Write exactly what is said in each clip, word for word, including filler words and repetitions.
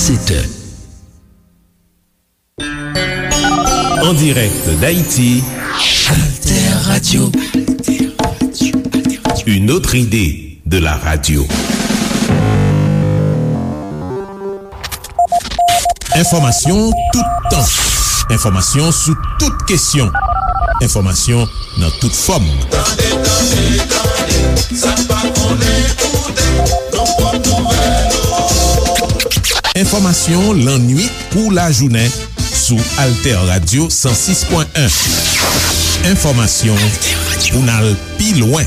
sept heures. En direct d'Haïti, Alter Radio. Une autre idée de la radio. Enfòmasyon toutan. Enfòmasyon sou tout kesyon. Enfòmasyon nan tout fòm. Tande, tande, tande, sa n pa konnen koute, nou pot nouvèl ou. Enfòmasyon lannwit kou lajounen sou Alter Radio san sis pwen en. Enfòmasyon pou n al pi lwen.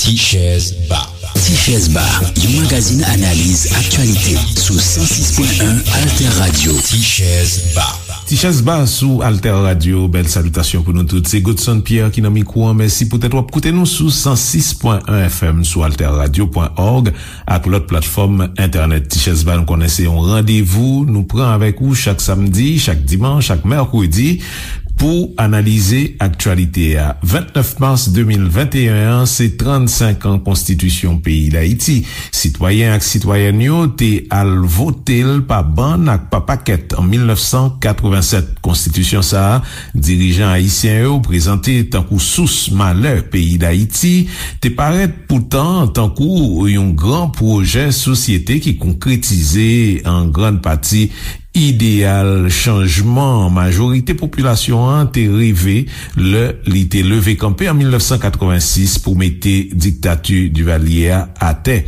Tichèz Ba. Tichèz Ba, yon magazin analiz aktyalite sou san sis pwen en Alter Radio. Tichèz Ba. Tichèz Ba sou Alter Radio. Bèl salitasyon pou nou tout. Se Godson Pierre ki nan mikwo an. Mèsi poutèt w ap koute nou sou san sis pwen en F M, sou alter radio pwen org ak lòt platfòm entènèt. Tichèz Ba, nou konnen se yon randevou nou pran avèk ou chak samdi, chak dimanch, chak mèkredi pou analize aktyalite a. Vennèf mas de mil venteyen an, se trannsenk an konstitisyon peyi Dayiti. Sitwayen ak sitwayèn yo te al vote l pa bann ak pa pakèt an mil nèf san katrevennsèt. Konstitisyon sa a, dirijan ayisyen yo prezante tankou sous malè peyi Dayiti, te parèt poutan tankou yon gran pwojè sosyete ki konkretize an grann pati ideyal chanjman majorite popilasyon an te reve lè li te leve kanpe an mil nèf san katrevensis pou mete diktati Divalye a atè.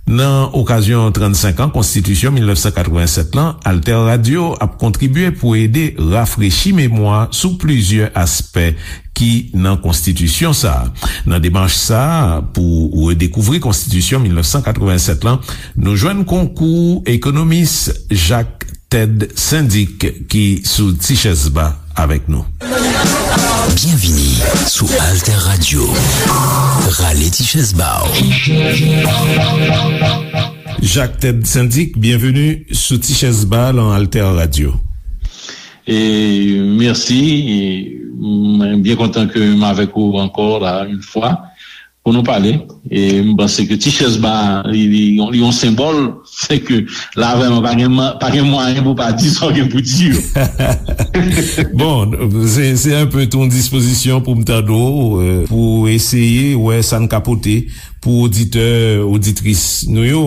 Nan okazyon trannsenk an konstitisyon mil nèf san katrevennsèt lan, Alter Radio ap kontribye pou ede rafrechi memwa sou plizyè aspè ki nan konstitisyon sa a. Nan demach sa a, pou redekouvri konstitisyon mil nèf san katrevennsèt lan, nou jwenn konkou ekonomis Jacques Ted Syndic ki sou Tichèz Ba avèk nou. Byenvini sou Alter Radio. Rale Tichèz Ba w. Jacques Ted Syndic, byenveni sou Tichèz Ba lan Alter Radio. E mèsi. E mwen byen kontan ke m avèk ou ankò la, yon fwa, pou nou pale. E m panse ke Tichèz Ba, li, li, li yon senbòl, se ke la vrèman pa gen, pa gen mwayen pou pa di sa w gen pou di yo. Bon, se, se enpe tou yon dispozisyon pou m tande w, euh, pou eseye wè sa n ka pote pou oditè, oditris nou yo.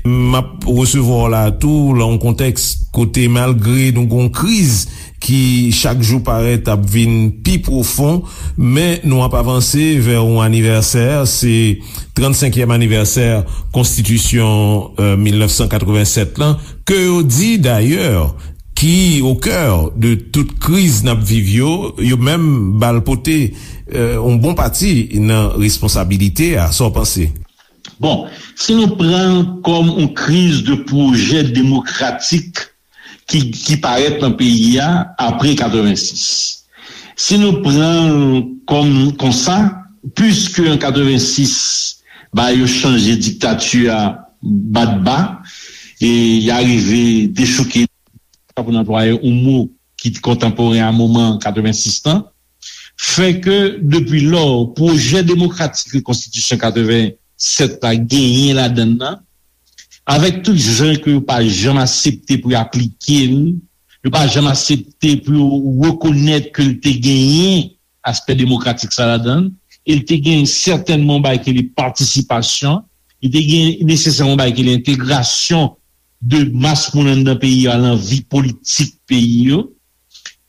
M ap resevwa w la tou lan yon kontèks kote, malgre nou gon kriz ki chak jou parèt ap vin pi pwofon, men nou ap avanse vè yon anivèsè, se trannsenkyèm anivèsè konstitisyon, euh, mil nèf san katrevennsèt lan, ke yo di dayè ki o kè de tout kriz n ap viv yo, yo menm ba l pote, euh, yon bon pati nan responsabilite a. Sa w panse? Bon, si nou pran l kòm yon kriz de pwojè demokratik ki, ki parèt nan peyi a apre katrevensis. Si nou pran l kòm konsa, piske an katrevensis, ba yo chanje diktati a bat ba, e y arive dechouke, pou n anplwaye yon mo ki kontanporen a moman katrevensis lan, fè ke depi lò, pwojè demokratik ke konstitisyon katrevennsèt la genyen ladan l nan, avèk tout jan ke yo pa janm aksepte pou yo aplike l, yo pa janm aksepte pou yo rekonèt ke l te genyen aspè demokratik sa ladan l, e l te gen sètènman yon bagay ki rele patisipasyon, li te gen nesesèman yon bagay ki rele entegrasyon de mas moun anndan peyi a lan vi politik peyi yo.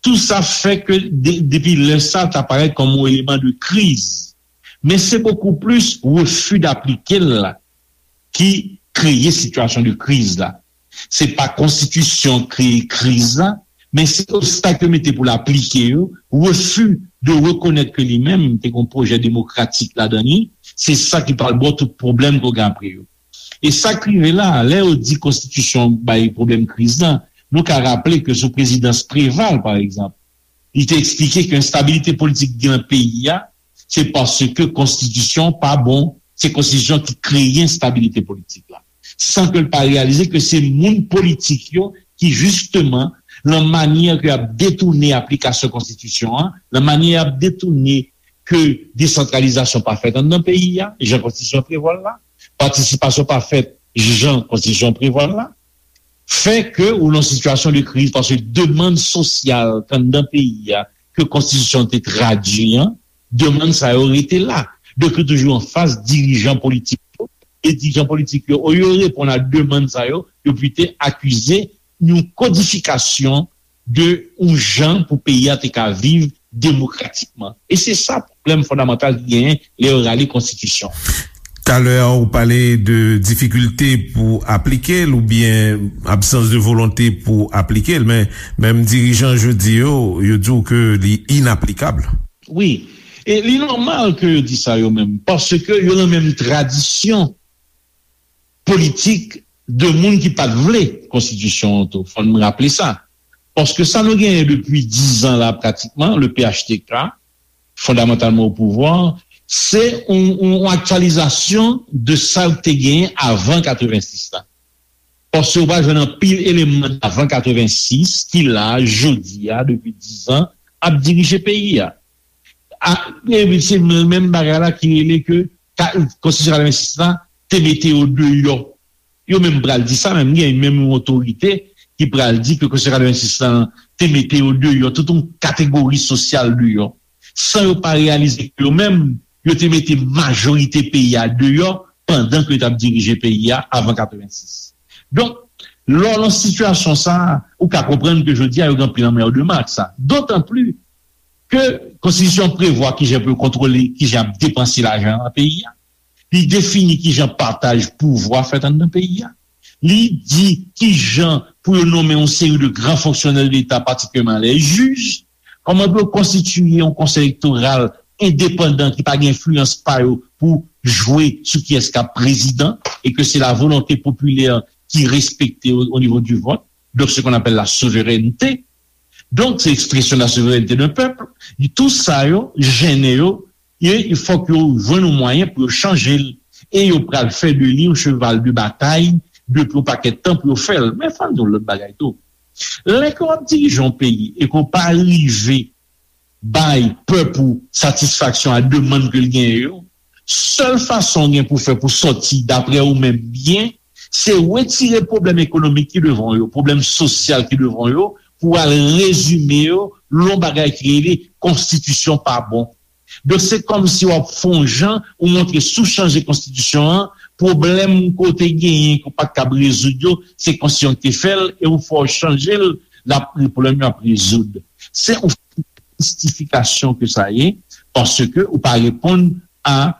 Tou sa fè ke de, depi lè sa, ta parèt kòm yon eleman de kriz. Men se bokou plis refi d'aplike l la ki kreye sitiyasyon de kriz la. Se pa konstitisyon kreye kriz la, men se obstak yo mete pou l aplike yo, refi de rekonèt ke li menm te gen yon pwojè demokratik ladan li, se sa ki pral ba w tout pwoblèm ke w gen apre yo. E sa k rive la, lè yo di konstitisyon bay pwoblèm kriz la, nou ka raple ke sou prezidans Preval, pa egzanp, li te eksplike ke enstabilite politik gen nan peyi a, se paske konstitisyon pa bon, se konstitisyon ki kreye enstabilite politik la. San ke l pa reyalize ke se moun politik yo ki, jisteman, lan manyè ke y ap detounen aplikasyon konstitisyon an, lan manyè y ap detounen ke desantralizasyon pa fèt anndan peyi a, jan konstitisyon an prevwa l la, patisipasyon pa fèt jan konstitisyon an prevwa l la, fè ke ou nan sitiyasyon de kriz, paske demann sosyal k anndan peyi a, ke konstitisyon an te tradui an, demann sa yo rete la. Donk, yo toujou anfas dirijan politik yo, e dirijan politik yo, olye yo reponn a demann sa yo, yo plito akize yon kodifikasyon de yon jan pou peyi a te ka viv demokratikman. E se sa pwoblèm fondamantal ki genyen lè yo rale konstitisyon. Talè a, ou pale de difikilte pou aplike l oubyen absans de volonte pou aplike l, men menm dirijan jodi yo, yo di w ke li inaplikab. Wi. E li nòmal ke yo di sa yo menm, paske yo nan menm tradisyon politik de moun ki pa t vle konstitisyon an tou. Fò n raple sa. Paske sa nou genyen depi diz an la pratikman, le P H T K, fondamantalman o pouvwa, se yon, yon, yon aktyalizasyon de sa yo te genyen avan katrevensis la. Paske ou pa jwenn anpil eleman avan katrevensis ki la, jodi a, depi diz an, ap dirije peyi a. A, e se menm bagay la ki rele ke ka, konstitisyon katrevensis la te mete yo deyò. Yo menm pral di sa, menm gen menm yon otorite ki pral di ke konstitisyon katrevensis la te mete yo deyò, tout yon kategori sosyal deyò, san yo pa reyalize ke yo menm, yo te mete majorite peyi a deyò pandan ke yo t ap dirije peyi a avan katrevensis. Donk, lè w nan sitiyasyon sa a, ou ka konprann ke jodi a yo gen anpil anmèdeman ak sa. Dotan pli ke konstitisyon prevwa kijan pou yo kontwole, kijan ap depanse lajan an peyi a. Li defini kijan pataj pouvwa fèt anndan peyi a. Li di kijan pou yo nonmen yon seri de gran fonksyonè de Leta, patikilyèman lè jij, kòman pou yo konstitiye yon konsèy elektoral endepandan ki pa gen enfliyans pa yo pou jwe sou kiyès k ap prezidan e ke se la volonte popilè ki respekte o, o nivo di vòt. Donk, se qu'on appelle la souveraineté. Donk, se ekspresyon la souveraineté d'un peuple. Tou sa yo, jennen yo, e fòk yo jwenn yon mwayen pou yo chanje l. E yo pral fè de li yon cheval de batay depi yon pakèt tan pou yo fè l. Men fò n di yon lòt bagay tou. Lè ke w ap dirije yon peyi e ke w pa rive bay pèp ou satisfaksyon a demann ke l genyen yo, sèl fason w gen pou fè pou sòti, daprè ou menm, byen, se retire pwoblèm ekonomik ki devan w yo, pwoblèm sosyal ki devan w yo, pou w al rezime yo lè yon bagay ki rele konstitisyon pa bon. Donk, se kòmsi w ap fè yon jan, ou montre si w chanje konstitisyon an, pwoblèm ke w te genyen, ke w pa t kab rezoud yo, se konstitisyon ki te fè l, e ou fè w chanje l, l ap, pwoblèm yo ap rezoud. Se yon mistifikasyon ke sa ye, paske ou pa reponn a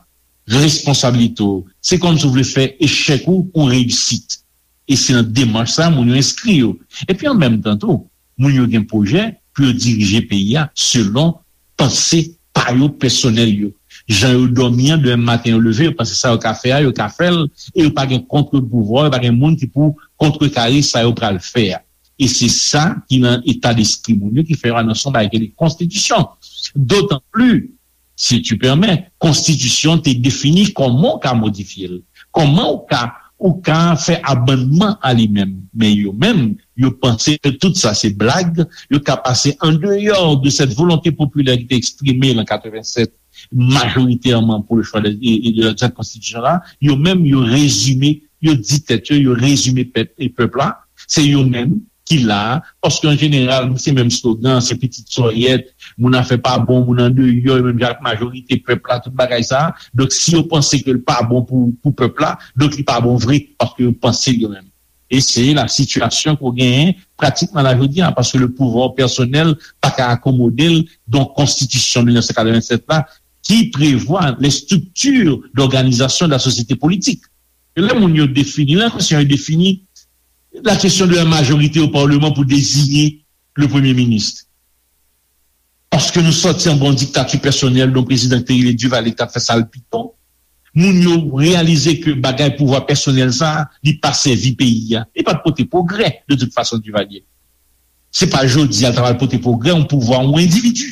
responsablite w. Se kòmsi w vle fè echèk ou yon reyisit. E se nan demach sa a moun yo enskri yo. Epi an menm tan tou, moun yo gen pwojè pou yo dirije peyi a selon panse pa yo pèsonèl yo. Jan yo dòmi an, demen maten yo leve, yo panse sa yo ka fè a, yo ka fè l, e yo pa gen kont pouvwa, yo pa gen moun ki pou kontrekare sa yo pral fè a. E se sa ki nan eta despri moun yo ki fè yo anonse yon bagay ki rele konstitisyon. Dotan pli, si tu permets, konstitisyon te defini kòman w ka modifye l, kòman w ka, ou ka fè amannman a li menm. Men yo menm, yo panse ke tout sa se blag, yo ka pase andeyò de cette volonté populaire ki te eksprime an katrevennsèt, majoritèman pour le choix de, de, de cette constitution la, yo menm, yo rezime, yo di tèt yo, yo rezime pèp, e pèp la, se yo menm ki la, paske an jeneral, se menm slogan, se pitit sòyèt, moun afè pa bon, moun andeyò, menm jan ak majorite pèp la, tout bagay sa. Donk, si yo panse ke l pa bon pou, pou pèp la, donk li pa bon vre, paske yo panse l yo menm. E se la sitiyasyon ke w genyen pratikman la jodi a, paske le pouvoir personnel pa ka akomode l, donk konstitisyon mil nèf san katrevennsèt la, ki prevwa les structures d'organisation de la société politique. E lè moun yo defini, lè konsyan yo defini la question de la majorité au Parlement pour désigner le Premier ministre. Paske nou sòti anba yon diktati pèsonèl de yon prezidan ki te rele Duvalier ki t ap fè sa l piton. Moun yo reyalize ke bagay pouvwa pèsonèl sa a, li pa sèvi peyi a. Li pa t pote pwogrè, de tout fason, Duvalier. Se pa jodi a l ta pral pote pwogrè, yon pouvwa, yon endividi.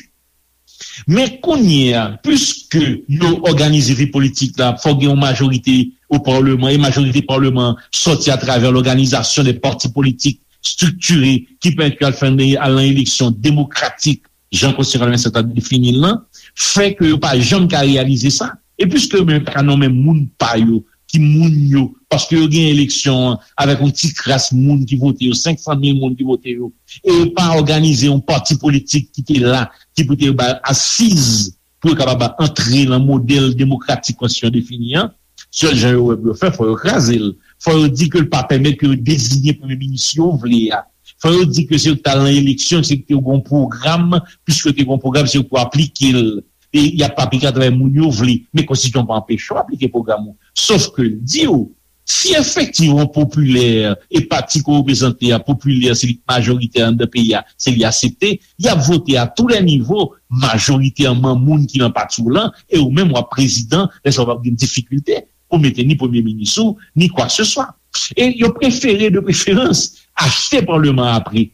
Men kounye a, piske yo òganize vi politik la, fò gen yon majorite o palman, e majorite palman sòti atravè lòganizasyon de pati politik estriktiye ki pèmèt yo al fè, al nan eleksyon demokratik jan Konstitisyon katrevennsèt la defini l lan, fè ke yo pa janm ka reyalize sa. E piske yo menm pa ka nonmen moun pa yo, ki moun yo, paske yo gen eleksyon an avèk yon ti kras moun ki vote yo, senk san mil moun ki vote yo, e yo pa òganize yon pati politik ki te la, ki pou te ba asiz pou yo kapab antre nan modèl demokratik konstitisyon defini an, sèl jan yo wè pou yo fè, fò yo kraze l. Fò yo di ke l pa pèmèt ke yo deziye premye minis yo vle a. Fò yo di ke se yo k t al nan eleksyon, se yo gen yon pwogram, piske yo te gen yon pwogram, se yo k pou aplike l. E y ap aplike atravè moun yo vle. Men konstitisyon pa anpeche w aplike pwogram ou. Sof ke l di w, si efektivman popilè e pati ke w reprezante a, popilè, se li k majoritè anndan peyi a, se li aksepte, y ap vote a tou lè nivo, majoritèman moun ki nan pati w lan, e ou menm w ap prezidan, lè sa w p ap gen difikilte pou mete ni premye minis ou, ni kwakeseswa. E yo prefere, de preferans, achte paleman an apre.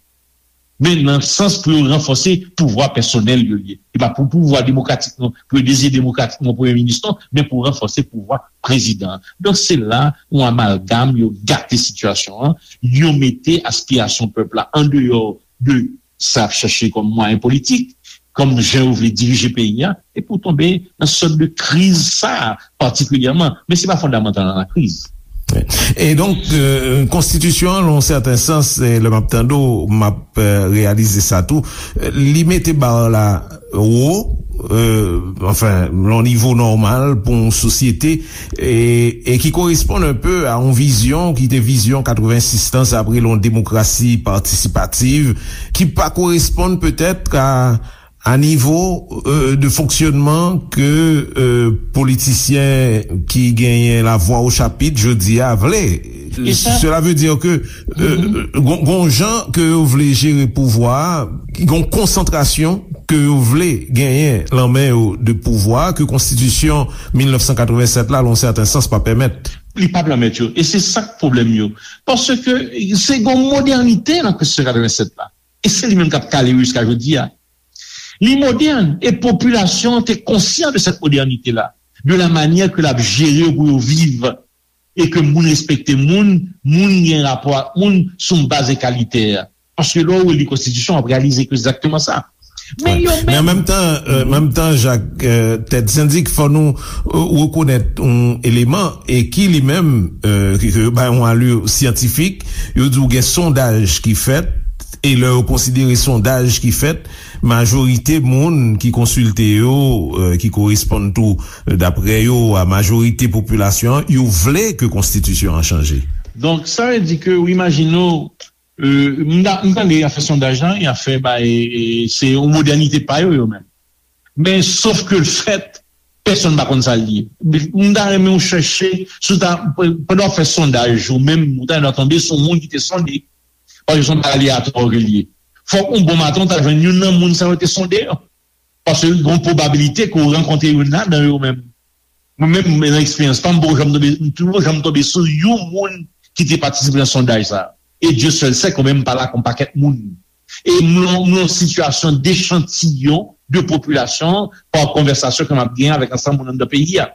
Men nan sans pou yo ranfòse pouvwa pèsonèl yo ye. E pa pou pouvwa demokratik non, pou yo deziye demokratikman premye minis non, men pou ranfòse pouvwa prezidan an. Donk se la yon amalgam, yo gate sitiyasyon an, yo mete aspirasyon pèp la andeyò de sa y ap chache kòm mwayen politik, kòm jan yo vle dirije peyi a, epi w tonbe nan sòt de kriz sa a patikilyèman. Men se pa fondamantal nan lakriz. E donk, euh, konstitisyon an, nan yon sèten sans, e lè m ap tande w, m ap euh, reyalize sa tou, euh, li mete ba la wo, euh, anfen, nan yon nivo nòmal pou yon sosyete, e, e ki koresponn un peu a yon vizyon ki te vizyon katrevensis lan, sa vle yon demokrasi patisipativ, ki pa koresponn petèt a a nivo euh, de fonksyonman ke euh, politisyen ki genyen lavwa o chapit jodi a vle. Cela veut dire que euh, gon, gon jan ke yo vle jere pouvwa a, gon konsantrasyon ke yo vle genyen lan men yo de pouvwa ke konstitisyon mil nèf san katrevennsèt la, lan sèten sans, pa pèmèt. Li pa pèmèt yo. E se sa k pwoblèm yo. Paske se gon modènite nan konstitisyon katrevennsèt la. E se li menm k ap kale yo jiska jodi a. Li modèn e popilasyon an te konsyan de cette modernité-là, de la manière que l ap jere yo pou yo viv e ke moun respekte moun, moun gen rapò ak moun sou yon baz egalitè. Paske lè w li konstitisyon, w ap reyalize ke se egzakteman sa. Men yo menm. Men an menm tan, euh, menm tan, Jak, euh, Tèt Sendik, fò nou euh, rekonèt yon eleman e ki li menm, euh, ke, ke yo bay yon alur syantifik, yo di w gen sondaj ki fèt, e lè yo konsidere sondaj ki fèt, majorite moun ki konsilte yo, euh, ki koresponn tou, euh, daprè yo, a majorite popilasyon an, yo vle ke konstitisyon an chanje. Donk, sa vle di ke w imajine w, euh, m ta- m tande y ap fè sondaj lan, y ap fè bay, e, se yon modènite pa yo, yo menm. Men, sof ke l fèt, pèsonn pa konn sa l ye. M ta renmen w chèche, si w ta, pandan w ap fè sondaj, ou menm, ou ta tonbe sou moun ki te sonde. Paske se yon bagay aleyatwa ke l ye. Fòk yon bon maten, w ta jwenn youn nan moun sa yo te sonde yo. Paske gen yon pwobabilite ke w rankontre youn ladan yo menm. Mwen menm, nan eksperyans pa m, m poko janm tonbe, m poko janm tonbe sou yon moun ki te patisipe nan sondaj sa. E Dye sèl sè ke mwen menm m pale ak yon pakèt moun. E m nan yon sitiyasyon dechantiyon de popilasyon an pa konvèsasyon ke m ap genyen avèk ansanm moun anndan peyi a.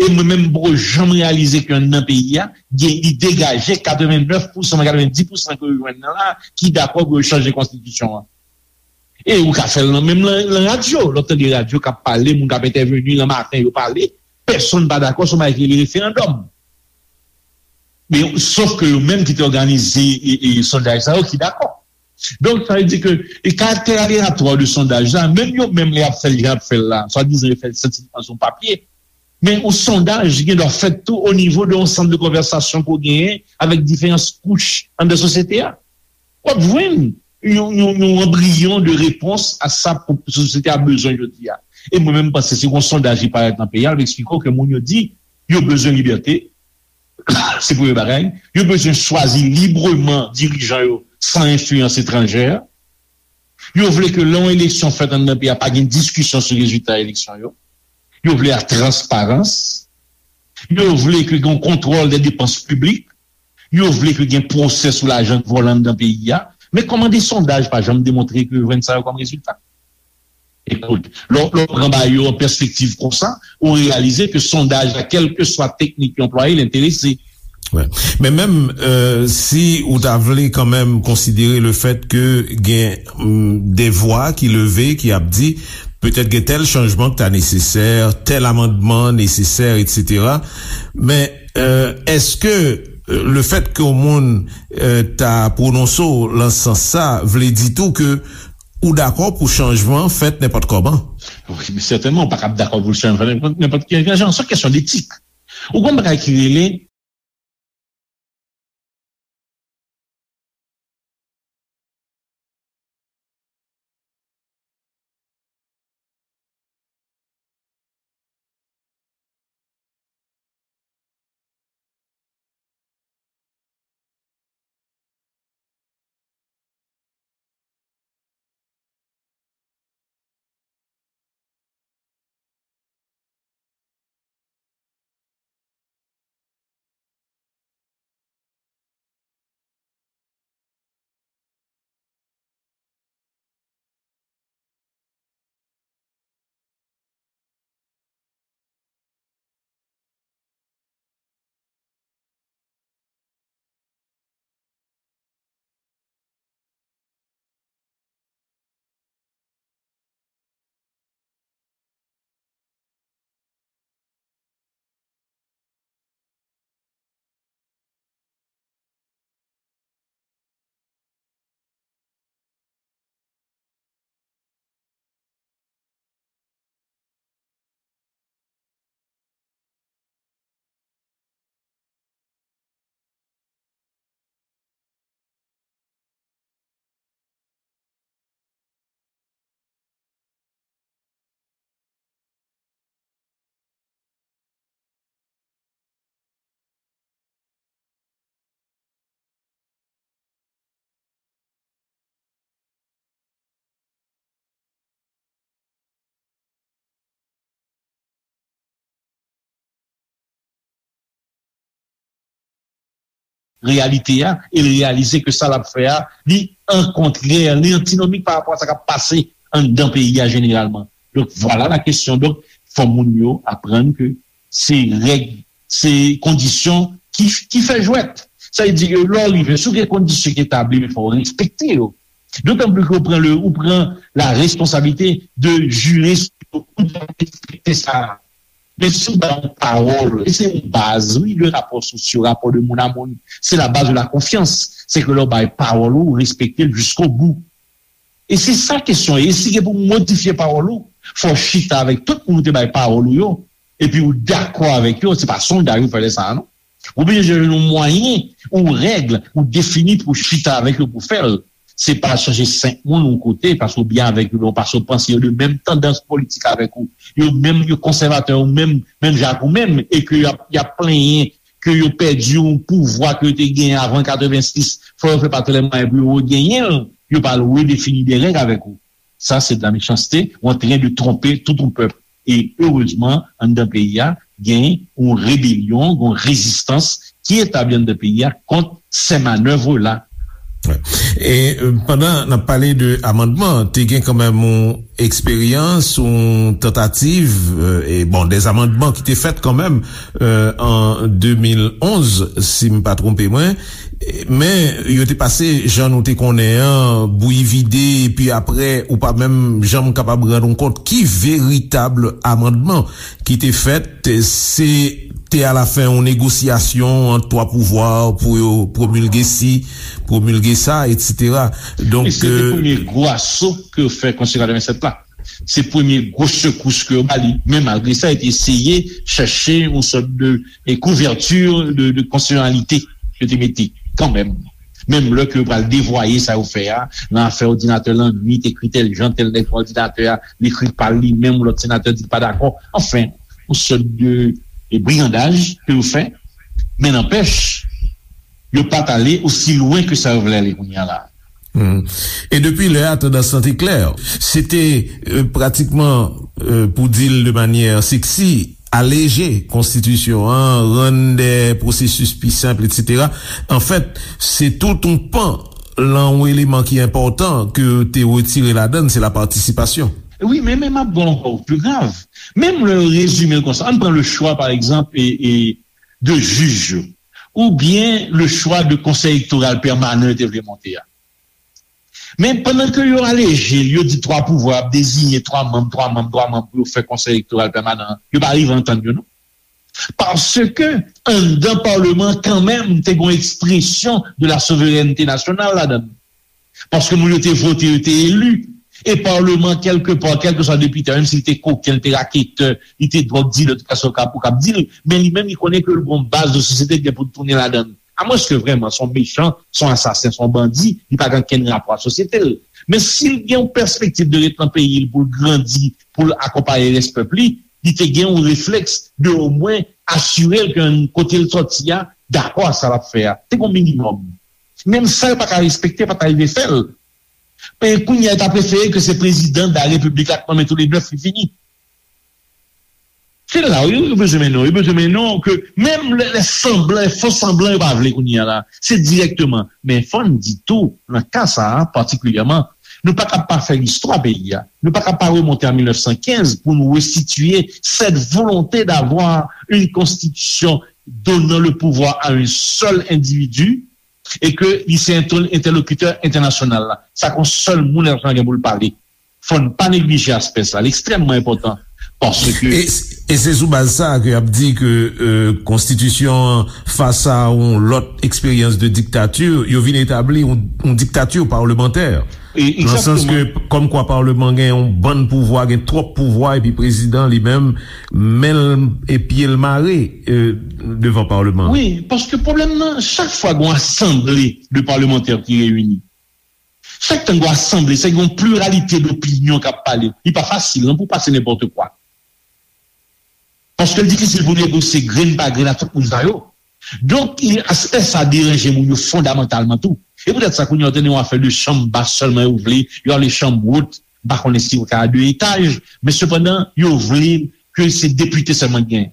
E mwen menm m poko janm reyalize ke anndan peyi a gen, li degaje katrevennèf pousan, katrevendis pousan ke yo jwenn nan la ki dakò pou yo chanje konstitisyon an. E ou ka fè l nan menm nan radyo. Lè w tande radyo k ap pale, moun k ap entèveni nan maten, yo pale, pèsonn pa dakò sou bagay ki rele referandòm. Men sof ke yo menm ki te òganize sondaj sa yo ki dakò. Donk sa vle di ke e karaktè aleyatwa de sondaj la, menm yo menm lè y ap fè l jan y ap fè l la, swadizan yo fè l syantifik sou papye, men yon sondaj gen dwa fèt tou o nivo de yon sant de konvèsasyon ke w genyen avèk diferan kouch anndan sosyete a. W ap jwenn yon, yon, yon anbriyon de repons a sa sosyete a bezwen jodi a. E mwen menm, m panse si yon sondaj ki parèt nan peyi a, l ap eksplike w ke moun yo di yo bezwen libète, se premye bagay. Yo bezwen chwazi libreman dirijan yo san enfliyans etranjè. Yo vle ke lè yon eleksyon fèt anndan peyi a, pa gen diskisyon sou rezilta eleksyon yo. Yo vle la transparans. Yo vle ke gen yon kontwòl de depans piblik. Yo vle ke gen pwosè sou lajan k vòlè anndan peyi a. Men kòman de sondaj pa janm demontre ke yo jwenn sa yo kòm rezilta? Ekout, lè w pran bagay yo an pèspektiv konsa, ou reyalize ke sondaj la, kèlkeswa teknik yo anplwaye, l enterese. Wè. Men menm, euh, si ou ta vle kanmenm konsidere le fèt ke gen, mm, de vwa ki leve, ki ap di, petèt gen tèl chanjman ki ta nesesè, tèl amandman nesesè, etsetera. Men, euh, èske, euh, le fèt ke yon moun, euh, ta pwononse w lan sans sa, vle di tou ke ou dakò pou chanjman fèt nenpòt kòman? Wi, men sètènman, ou pa kab dakò pou chanjman fèt nenpòt, nenpòt ki jan. Se yon kesyon detik. Ou konn bagay ki rele reyalite a, e l reyalize ke sa l ap fè a, li an kontrè, li antinomik pa rapò a sa k ap pase anndan peyi a jeneralman. Donk, vwala la kesyon. Donk, fò moun yo aprann ke se règ, se kondisyon ki, ki fè jwèt. Sa vle di ke lè w rive, si w gen kondisyon ki etabli, men fò w respekte yo. Dotan plis ke w pran le, ou pran la responsabilite de jire sou yo, ou dwe respekte sa. Men si w bay yon pawòl, e se yon baz, wi, de rapò sosyo, rapò de moun a moun, se la baz de la konfyans. Se ke lè w bay pawòl ou, ou respekte l jiskobou. E se sa kesyon an. E si gen pou modifye pawòl ou, fò w chita avèk tout moun ou te bay pawòl ou yo, epi ou dakò avèk yo, se pa sondaj ou fè lè sa a, non. Ou bezwen jwenn yon mwayen, yon règ, ou defini pou chita avèk yo pou fè l. Se pa chache senk moun yon kote, paske w byen avèk yo, ou paske w panse yo de menm tandans politik avèk ou. Yo menm, yo konsèvatè, yo menm, menm jan ak ou menm, e ke y ap, y ap plenyen ke yo pèdi yon pouvwa ke yo te genyen avan katrevensis, fò yo fè pa tout lè mwayen pou yo regenyen l, yo pral redefini de règ avèk ou. Sa, se de la mechanste, ou antren de twonpe tout yon pèp. E erezman, anndan peyi a, gen yon rebelyon, gen yon rezistans ki etabli anndan peyi a kont sè manèv la. Wè. E, euh, pandan n ap pale de amandman, te gen kanmenm yon eksperyans, yon tantativ, euh, e bon, des amandman ki te fèt kanmenm, euh, an de mil onz, si m pa twonpe mwen. Men, yo te pase, jan nou te konnen an, bouyi vide, epi apre, ou pa menm janm kapab rann ou kont ki veritab amandman ki te fèt. Se te alafen yon negosyasyon ant twa pouvwa pou yo pwomilge si, pwomilge sa, etsetera. Donk, e se te, euh, premye gwo aso ke yo fè Konstitisyon katrevennsèt la. Se premye gwo sekous ke yo ba li. Men malgre sa, yo te eseye chèche yon sòt de, de kouvèti de, de konstisyonalite yo te mete kanmenm. Menm lè ke yo pral devwaye sa yo fè a, nan afè òdinatè lannwit, ekri tèl jan, tèl nèg pran òdinatè a, li ekri pa l li menm, lòt senatè di l pa dakò. Anfen, yon sòt de, de brigandaj ke yo fè. Men nanpèch, yo pa t ale osi lwen ke sa yo vle ale kounye a la. Hmm. E depi lè a, tandans lan te klè. Se te, euh, pratikman, euh, pou di l de manyè seksi, aleje konstitisyon an, rann de pwosesis pi senp, etsetera. Anfèt, se tout yon pan lan yon eleman ki enpòtan ke yo te retire ladan l, se la patisipasyon. Wi, men, men m ap ba w ankò pli grav. Menm lè yo rezime l konsa, ann pran le chwa, pa egzanp, e, e de jij yo. oubyen le chwa de konsèy elektoral pèmanan yo te vle monte a. Men pandan ke yo aleje l, yo di twa pouvwa ap deziyen twa manm, twa manm, twa manm pou yo fè konsèy elektoral pèmanan an, yo pa rive antann yo non. Paske anndan palman kanmenm te gen yon ekspresyon de la souverènte nasyonal ladan l. Paske moun yo te vote, yo te eli. E palman, kèlkepa, kèlkeswa depite a, menm si li te koken, li te raketè, li te dwòg dilè, tout sa w ka, ou k ap di l, men li menm, li konnen ke l gen yon baz de sosyete ki gen pou l tounen ladan l. Amwenske vrèman se yon mechan, se yon asasen, se yon bandi, li pa gen okenn rapò ak sosyete l. Men si l gen yon pèspektiv de ret nan peyi l pou l grandi, pou l akonpaye rès pèp li, li te gen yon reflèks de omwen asire l ke kote l sòti a dakò ak sa l ap fè a. Te gen yon minimòm. Menm sa yo pa ka respekte, pa ta rive fè l. E kounye a, yo ta prefere ke se prezidan de la repiblik la k nonmen tou le nèf, li fini. Se la yo, yo bezwen mennen w. Yo bezwen mennen w ke menm lè, lè sanblan, lè fo sanblan yo pa vle kounye a la. Se dirèkteman. Men fò n di tou, nan ka sa a patikilyèman, nou pa ka pa fè listwa peyi a. Nou pa ka pa remonte a mil nèf san kenz pou nou resitye cette volonté d'avoir une constitution donnant le pouvoir à un seul individu et que li se entèlokitè entènasyonal la. Sa k yon sèl moun entènasyonal gen pou l pale. Fò n pa neglije aspè sa, li ekstrèmman enpòtan. Paske e, e se sou baz sa a ke y ap di ke euh, konstitisyon an fas a yon lòt eksperyans de diktati, yo vin etabli yon, yon diktati palmantè. Nan sans ke kòmkwa palman gen yon bann pouvwa, gen twòp pouvwa, epi prezidan li menm, men l e pye l mare euh, devan palman. Wi, paske pwoblèm nan, chak fwa gen yon asanble de palmantè ki reyini, chak tan gen yon asanble, se gen yon pliralite dopinyon k ap pale. Li pa fasil non pou pase nenpòt kwa. Paske l difisil pou negosye grenn pa grenn ak tout moun sa yo. Donk, aspè sa deranje moun yo fondamantalman tou. E poutèt sa, kounye a, w tande yon afè de chanm bas sèlman yo vle, yo ale chanm wot, m pa konnen si yo ka a de etaj, men sepandan, yo vle ke se depite sèlman k genyen.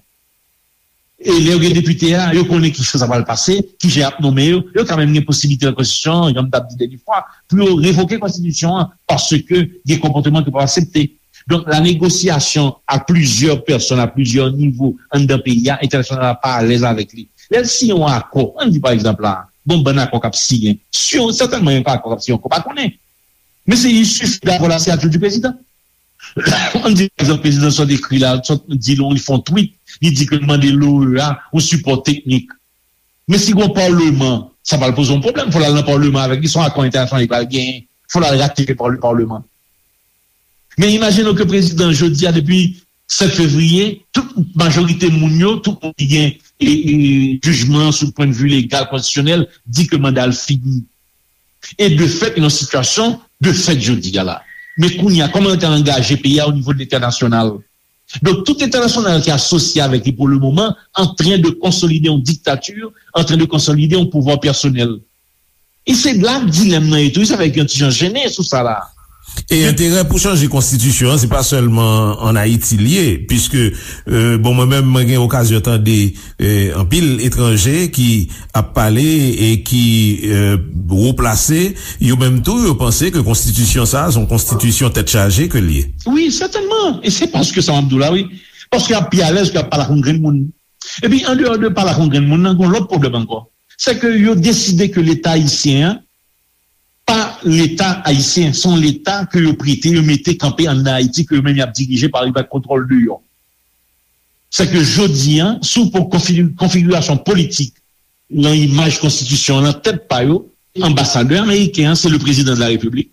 E lè yo gen depite a, yo konnen ki jan sa pral pase, ki jan y ap nonmen yo, yo ka menm gen posiblite nan konstitisyon an, jan m t ap di dènye fwa, pou yo revoke konstitisyon an, paske gen konpòteman ke yo p ap aksepte. Donk, la négociation à plusieurs personnes, à plusieurs niveaux, anndan peyi a, entènasyonal la pa alèz avèk li. Lè l siyen yon akò, ann di pa egzanp la, gon bann akò k ap siyen, si yon, sètènman yon akò k ap siyen ankò, pa konnen. Men se il suffit d'avoir la signature du président. Ann di pa egzanp, prezidan sa dekri la, sa di l, li fè yon tweet, li di ke l mande l'O E A yon sipò teknik. Men si gon palman, sa pral poze yon pwoblèm. Fò l al nan palman avèk li, se yon akò entènasyonal li pral genyen. Fò l al ratifye pa le palman. Men imajine w ke prezidan jodi a, depi sèt fevriye, tout majorite moun yo, tout moun ki gen e, e, jijman sou pwennvi legal, konstitisyonèl, di ke manda l fini. E de fèt, nan sitiyasyon de fèt jodi a la. Men kounye a, kòman yo te angaje peyi a o nivo de lentènasyonal? Donk, tout entènasyonal ki asosye avèk li pou le moman, antren de konsolide yon diktati, antren de konsolide yon pouvwa pèsonèl. E se la dilèm nan ye tou, sa fè yon ti jan jennen sou sa la. E enterè pou chanje konstitisyon an, se pa sèlman ann Ayiti l ye, piske, euh, bon, mwen menm, mwen gen okazyon tande euh, anpil etranje ki ap pale e ki euh, wo plase, yo menm tou, yo panse ke konstitisyon sa a se yon konstitisyon tèt chaje ke l ye. Wi, sètènman. E se paske sa m ap di w la, wi. Paske y ap pi alèz ke y ap pale ak yon grenn moun. Epi, andeyò de pale ak yon grenn moun nan, gen yon lòt pwoblèm ankò. Se ke yo deside ke Leta ayisyen an, pa Leta ayisyen, se yon Leta ke yo prete, yo mete kanpe anndan Ayiti, ke yo menm y ap dirije pa, pa kontwòl deyò. Se ke jodi a, si w pran konfi-, konfigirasyon politik nan imaj konstitisyon an, nan tèt pa yo, anbasadè ameriken an, se le prezidan de la repiblik.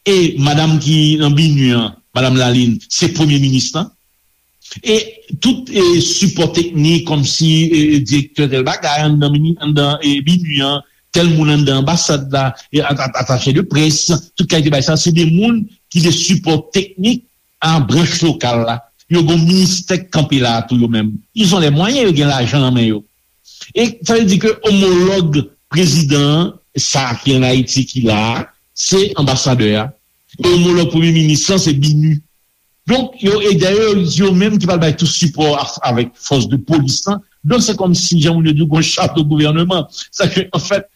E madanm ki nan BINUH an, madanm Lalin, se premye minis lan. E tout e, sipò teknik, kòmsi e, direktè tèl bagay, anndan, mini, anndan e, BINUH an, tèl moun anndan anbasad la, e, at-, at-, atache de près, tout kalite bagay sa, se de moun ki de sipò teknik a branch lokal la. Yo gen ministè k kanpe la a tou yo menm. Ils ont les moyens, yo gen lajan nan men yo. E sa vle di ke omològ prezidan an, sa ki ann Ayiti ki la a, se anbasadè a. E omològ premye minis lan, se BINUH. Donk, yo, e dayè, yo menm ki pral bay tout sipò a, avèk fòs de polis lan. Donk, se kòmsi, jan moun yo di, gon chato gouvèneman. Sa ke, anfèt,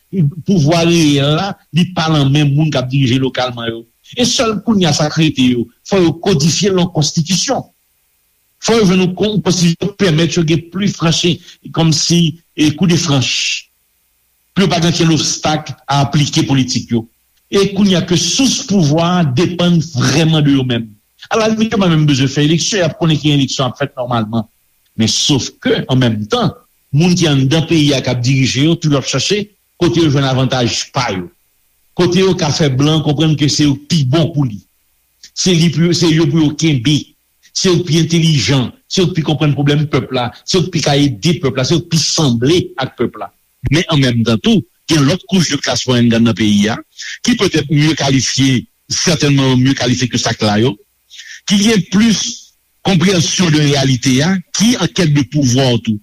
pouvwa reyèl la, li pa nan men moun k ap dirije lokalman yo. E sèl kounye a sa k rete yo, fò yo kodifye l nan konstitisyon. Fò yo jwenn yon kon-, yon konstitisyon ki pèmèt yo gen pli franchi, kòmsi, e, kou de franch, pou yo pa gen okenn obstak a aplike politik yo. E kounye a ke sous pouvwa a depann vrèman de yo menm. Alalimit, yo pa menm bezwen fè eleksyon, y ap konnen ki eleksyon ap fèt nòmalman. Men sof ke, an menm tan, moun ki anndan peyi a k ap dirije yo, toujou ap chache kote yo jwenn avantaj pa yo. Kote yo ka fè blan konprann ke se yo k pi bon pou li. Se li pou, se yo pou yo kenbe. Se yo k pi entèlijan, se yo k pi konprann pwoblèm pèp la, se yo k pi ka ede pèp la, se yo k pi sanble ak pèp la. Men an menm tan tou, gen lòt kouch de klas mwayèn k anndan peyi a, ki petèt mye kalifye, sètènman mye kalifye ke sa k la yo, ki gen plis konpreyansyon de reyalite a, ki an kèt de pouvwa tou.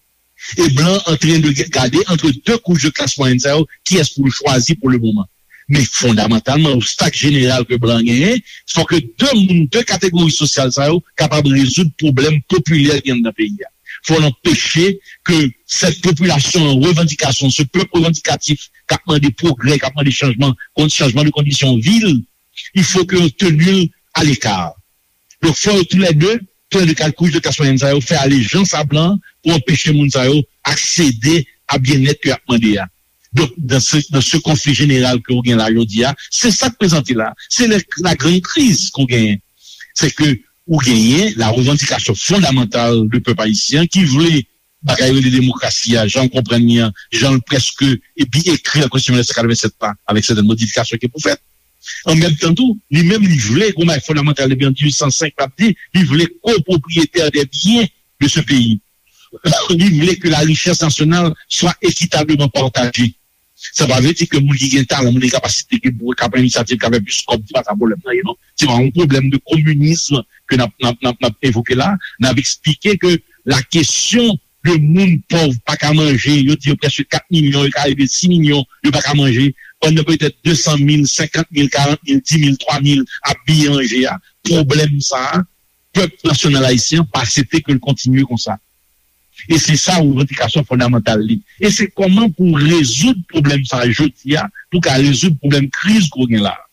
E blan antren de gade antre de kouch de klas mwayèn sa yo, kiyès pou l chwazi pou le moman. Men fondamantalman, obstak jeneral ke blan genyen, fò ke de moun, de kategori sosyal sa yo kapab rezoud pwoblèm popilè ki anndan peyi a. Fò n anpeche ke sèt popilasyon an revandikasyon, se pèp revandikatif k ap mande pwogrè, k ap mande chanjman, kon-, chanjman de kondisyon vi l, il faut que yo teni l aleka. Donk, fò yo toulède, toulède kat kouch de klas mwayèn sa yo, fè alejans a blan pou anpeche moun sa yo aksede a byennèt ke y ap mande a. Donk, dans ce, dans ce conflit général ke ou gen la jodi a, se sa k prezante la. Se le, la grande crise ke ou genyen. Se ke ou genyen la revandikasyon fondamantal de pèp ayisyen ki vle bagay rele demokrasi a, jan l konprann li an, jan l prèske epi ekri an Konstitisyon mil nèf san katrevennsèt la, avèk sètèn modifikasyon ki pou fèt. An menm tan tou, li menm li vle, gon bagay fondamantal depi an dizuit san senk l ap di, li vle kopwopriyetè dè byen de se peyi. Li vle ke la richès nasyonal swa ekitableman pataje. Sa pa vle di ke moun ki gen talan, moun ki gen kapasite, ki pou, k ap pran inisyativ, k ap fè plis kòb, se pa sa pwoblèm nan ye, non. Se pa yon pwoblèm de kominism ke n ap, n ap, n ap, n ap evoke la. N ap eksplike ke la kesyon de moun pòv pa ka manje, yo di yo prèske kat milyon, yo ka rive sis milyon, yo pa ka manje, pandan petèt de san mil, senkant mil, karant mil, dis mil, twa mil ap biye manje a. Pwoblèm sa a, pèp nasyonal ayisyen an pa aksepte ke l kontinye konsa. E se sa revandikasyon fondamantal li. E se kòman pou rezoud pwoblèm sa a jodi a, pou ka rezoud pwoblèm kriz ke w gen la a.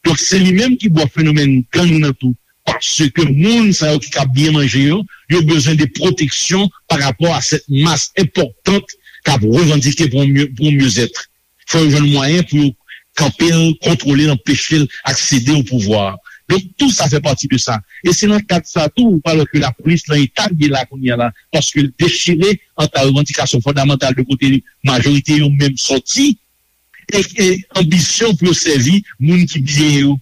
Donk, se li menm ki bò fenomèn gang nan tou. Paske moun sa yo ki ka byen manje yo, yo bezwen de pwoteksyon pa rapò a sèt mas enpòtan k ap revandike pou yon mye, pou yon myezèt. Fò yo jwenn mwayen pou yo kanpe l, kontwole l, anpeche l aksede o pouvwa. Donk, tou sa fè pati de sa. E se nan kad sa tou, ou pa wè ke lapolis nan eta l ye la kounye a la, paske l dechire ant la revandikasyon fondamantal de kote majorite yo menm sòti, e, e anbisyon pou yo sèvi moun ki byen yo.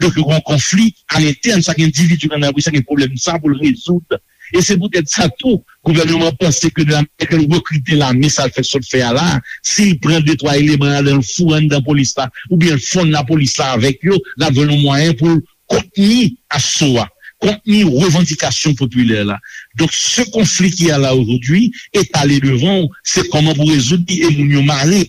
Donk, yo gen yon konfli alentèn, chak endividi ki anndan lapolis la gen pwoblèm sa pou l rezoud. E se poutèt sa tou, gouvènman an panse ke de la manyè ke l rekrite lame, sa l fè sot fè a la, si l pran de twa eleman ladan l foure anndan polis la, oubyen l fonn lapolis la avèk yo, l ap jwenn yon mwayen pou l kontni aso a, kontni revandikasyon popilè la. Donk, se konfli ki a la ojodwi, etale devan w, se kòman pou rezoud li e moun yo mare.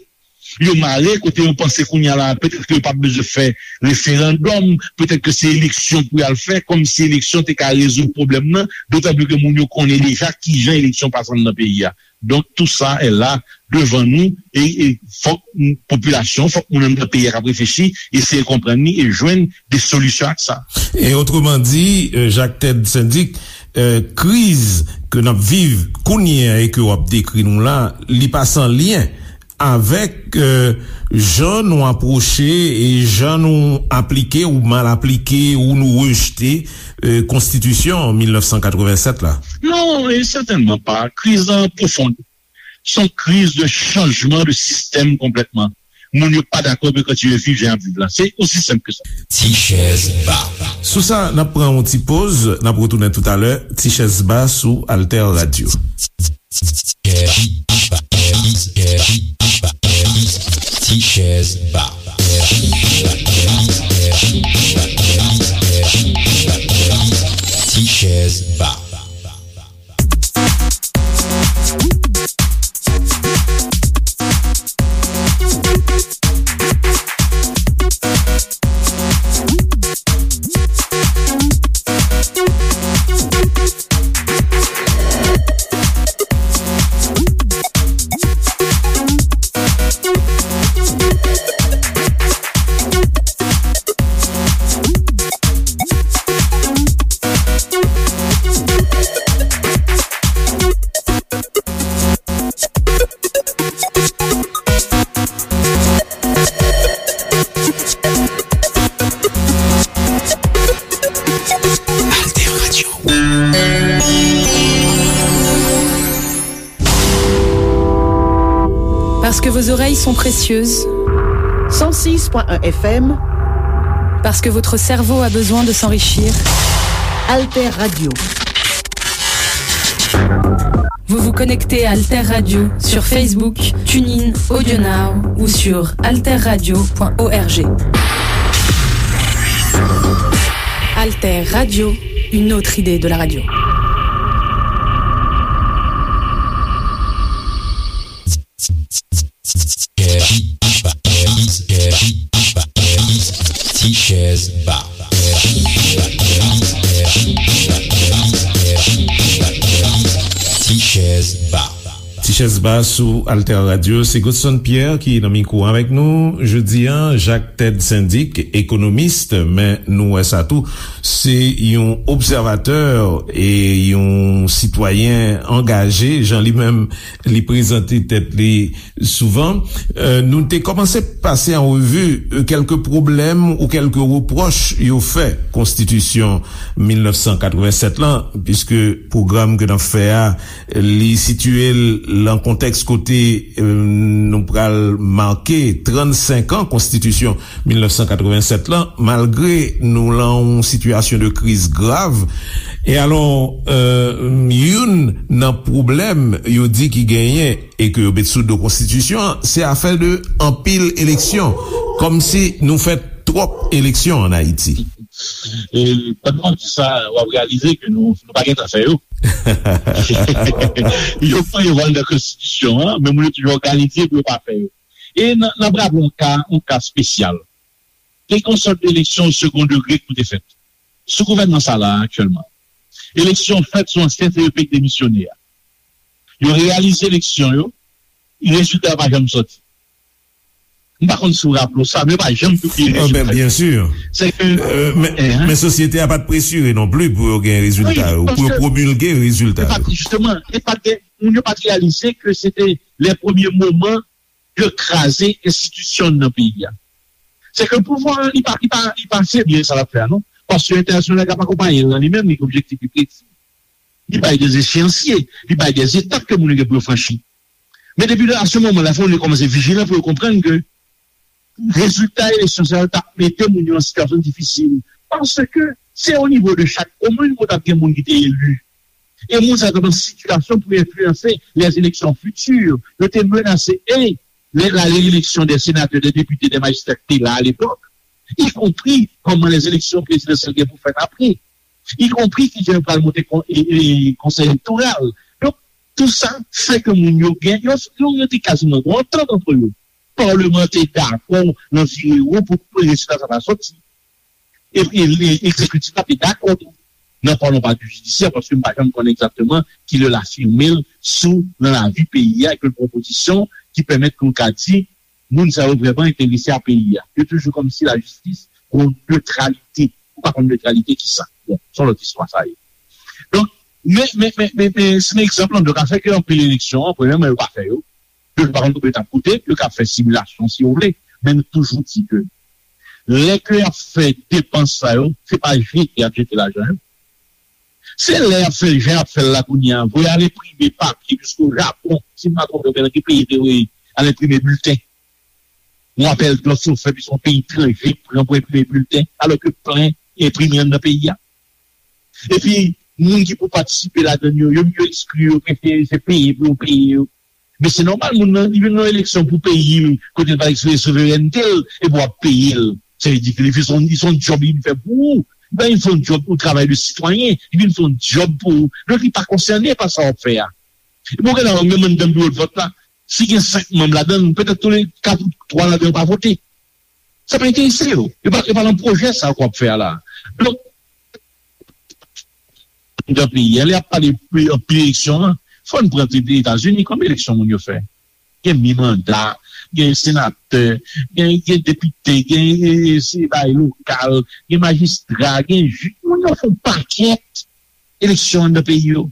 Yo mare kote yo panse kounye a la, petèt ke yo p ap bezwen fè referandòm, petèt ke se eleksyon pou y al fè, kòmsi eleksyon te ka rezoud pwoblèm nan, dotan pli ke moun yo konnen deja kijan eleksyon pase anndan peyi a. Donk, tou sa est là devan nou, e, e fòk popilasyon, fòk moun anndan peyi a k ap reflechi, eseye konprann li e jwenn de solisyon ak sa. E otreman di, euh, Jacques Ted Syndic, euh, kriz ke n ap viv kounye a e ke w ap dekri nou la, li pa san lyen avèk, euh, jan nou apwoche e jan nou aplike ou mal aplike ou nou rejte, euh, konstitisyon mil nèf san katrevennsèt la. Non, e sètènman pa. Kriz lan pwofon. Se yon kriz de chanjman de sistèm konplètman. Moun yo pa dakò pou yo kontinye viv jan y ap viv la. Se osi senp ke sa. Ti chèz ba. Sou sa, n ap pran yon ti poz, n ap retounen toutalè. Ti chèz ba sou Alter Radio. Ti chèz ba. Ti chèz ba. Parce que vos oreilles sont précieuses. Cent six point un F M. Parce que votre cerveau a besoin de s'enrichir. Alter Radio. Vous vous connectez à Alter Radio sur Facebook, TuneIn, AudioNow ou sur alterradio point org. Alter Radio, une autre idée de la radio. Tichèz Ba. Tichèz Ba. Tichèz Ba sou Alter Radio, se Godson Pierre ki nan mikwo avèk nou. Jodi a, Jacques Ted Syndic, ekonomis, men nou wè sa tou, se yon obsèvatè e yon sitwayen angaje, jan li menm li prezante tèt li souvan. Euh, nou te kòmanse pase an revi, euh, kèlke pwoblèm ou kèlke repwòch yo fè konstitisyon mil nèf san katrevennsèt lan, piske pwogram ke n ap fè a, li sitiye l nan kontèks kote, euh, nou pral make trannsenk an konstitisyon mil nèf san katrevennsèt lan, malgre nou lan yon sitiyasyon de kriz grav. E alò, euh, youn nan pwoblèm yo di ki genyen e ke yo met sou do konstitisyon an, se afè de anpil eleksyon. Kòmsi nou fè twòp eleksyon ann Ayiti. E pandan w ap di sa, w ap reyalize ke nou, nou pa gentan fè yo. Yo prevwa l nan konstitisyon an, men moun yo toujou òganize pou yo pa fè yo. E n, n ap raple yon ka, yon ka espesyal. Te gen yon sòt de eleksyon segon degre ki te fèt sou gouvènman sa la aktyèlman. Eleksyon fèt sou ansyen C E P ki demisyone a. Yo reyalize eleksyon yo, rezilta yo pa janm soti. M pa konn si w raple w sa, men yo pa janm pibliye rezilta yo. Byen si. Se ke, men, men sosyete a pa t presire non pli pou yo gen rezilta yo, pou yo pwomilge rezilta yo. Jisteman, e pa t gen, moun yo pa t reyalize ke se te lè premye moman de kraze enstitisyon nan peyi a. Se ke pouvwa an, li pa, li pa, li pa febli sa l ap fè a, non. Paske entènasyonal la k ap akonpaye l lan, li menm, li gen objektif li presi. Li bay de echéanciers, li bay de etap ke moun yo gen pou yo franchi. Men depi a se moman la, fò moun yo kòmanse vijilan pou yo konprann ke rezilta eleksyon sa yo t ap mete moun yo an sitiyasyon difisil. Paske se o nivo de chak komin ou t ap gen moun ki te eli. E moun sa yo t ap nan sitiyasyon pou enfliyanse les élections futures. Yo te menase, e lè la reyeleksyon dè senatè, dè depite, dè majistra ki te la alepòk, ikonpri kòman les élections présidentielles gen pou fèt apre, ikonpri kijan yo pral monte kon, e, e, konsèy elektoral. Donk, tou sa fè ke moun yo gen, yo, yo, yo te kaziman gen yon antant antre yo. Palman an te dakò nan vire wo pou rezilta sa ta soti. Epi, e, egzekitif la te dakò tou. Nan palman pa di jidisyè, paske m pa janm konnen egzakteman kilè l afime l sou nan lavi peyi a, ke l pran pozisyon ki pèmèt ke w ka di, moun sa yo vrèman enterese a peyi a. Yo toujou kòmsi lajistis gon netralite. Ou pa konn netralite ki sa. Bon, se yon lòt istwa sa ye. Donk, men, men, men, men, men, se yon egzanp lan, donk, afè ke anpil eleksyon an, premyèman, yo pa fè yo. Yo pa konn konbyen yo t ap koute, yo ka fè similasyon si yo vle. Men nou toujou di ke lè ke y ap fè depans sa yo, se pa jete y ap jete lajan yo. Se lè y ap fè l jan y ap fè l la kounye a, voye al enprime papye jiske o Japon, si m pa twonpe m, nan ki peyi te voye al enprime bilten. Yon apèl dòf yo fè, pi se yon peyi etranje ki pran pou enprime bilten, alò ke plen enprime anndan peyi a. Epi, moun ki pou patisipe ladan l yo, yo, yo ekskli yo, prefere se peye pou yo peye yo. Men se nòmal, moun nan, li vin nan eleksyon pou peyi l, kote l pral eksprime souverènte l, epi w ap peye l. Sa vle di ke li vin se yon, li se yon djòb li vin fè pou ou. Li pa vin fè yon djòb, yon travay de sitwayen, li vin fè yon djòb pou ou. Donk, li pa konsène pa sa w ap fè a. Epi w gen la, menm anndan biwo de vòt la, si gen senk manm ladan l, petèt tou le kat ou twa ladan yo pa vote. Sa pa enterese yo. Yo pa, yo pa nan pwojè sa k w ap fè a la. Donk, nan peyi a, lè y ap pale anpil eleksyon an, fò n pran Etazini kòm eleksyon moun yo fè. Gen mi manda, gen senatè, gen, gen depite, gen, e, e, se bay lokal, gen majistra, gen jij. Moun yo fè yon pakèt eleksyon anndan peyi yo.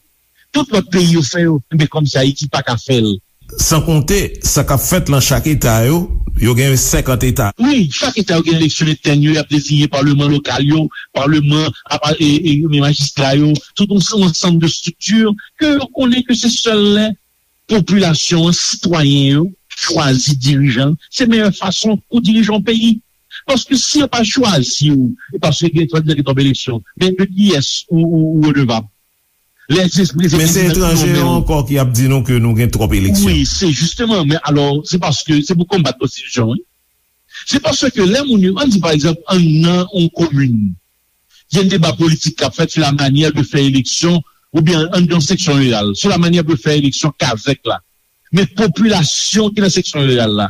Tout lòt peyi yo fè yo, men kòmsi Ayiti pa ka fè l. San konte sa k ap fèt lan chak eta yo, yo gen senkant eta. Wi, chak eta yo gen eleksyon entèn yo, y ap deziye palman lokal yo, palman, apa, e, e, e majistra yo, tout yon, yon ansanm de estrikti ke yo konnen ke se sèl lè popilasyon an, sitwayen yo, chwazi dirijan, se meyè fason pou dirije yon peyi. Paske si yo pa chwazi w, e paske gen twòp eleksyon, men de kiyès ou, ou, ou redevab? Lè se prezidan Men se etranje yo ankò ki ap di nou ke nou gen twòp eleksyon. Wi, se jisteman, men alò, se paske se pou konbat konstitisyon, wi. Se paske lè moun yo, ann di pa egzanp, ann nan yon komin, gen deba politik k ap fèt sou la manyè de fè eleksyon, oubyen ann nan yon seksyon riral, sou la manyè de fè eleksyon kazèk la. Men popilasyon ki nan seksyon riral la,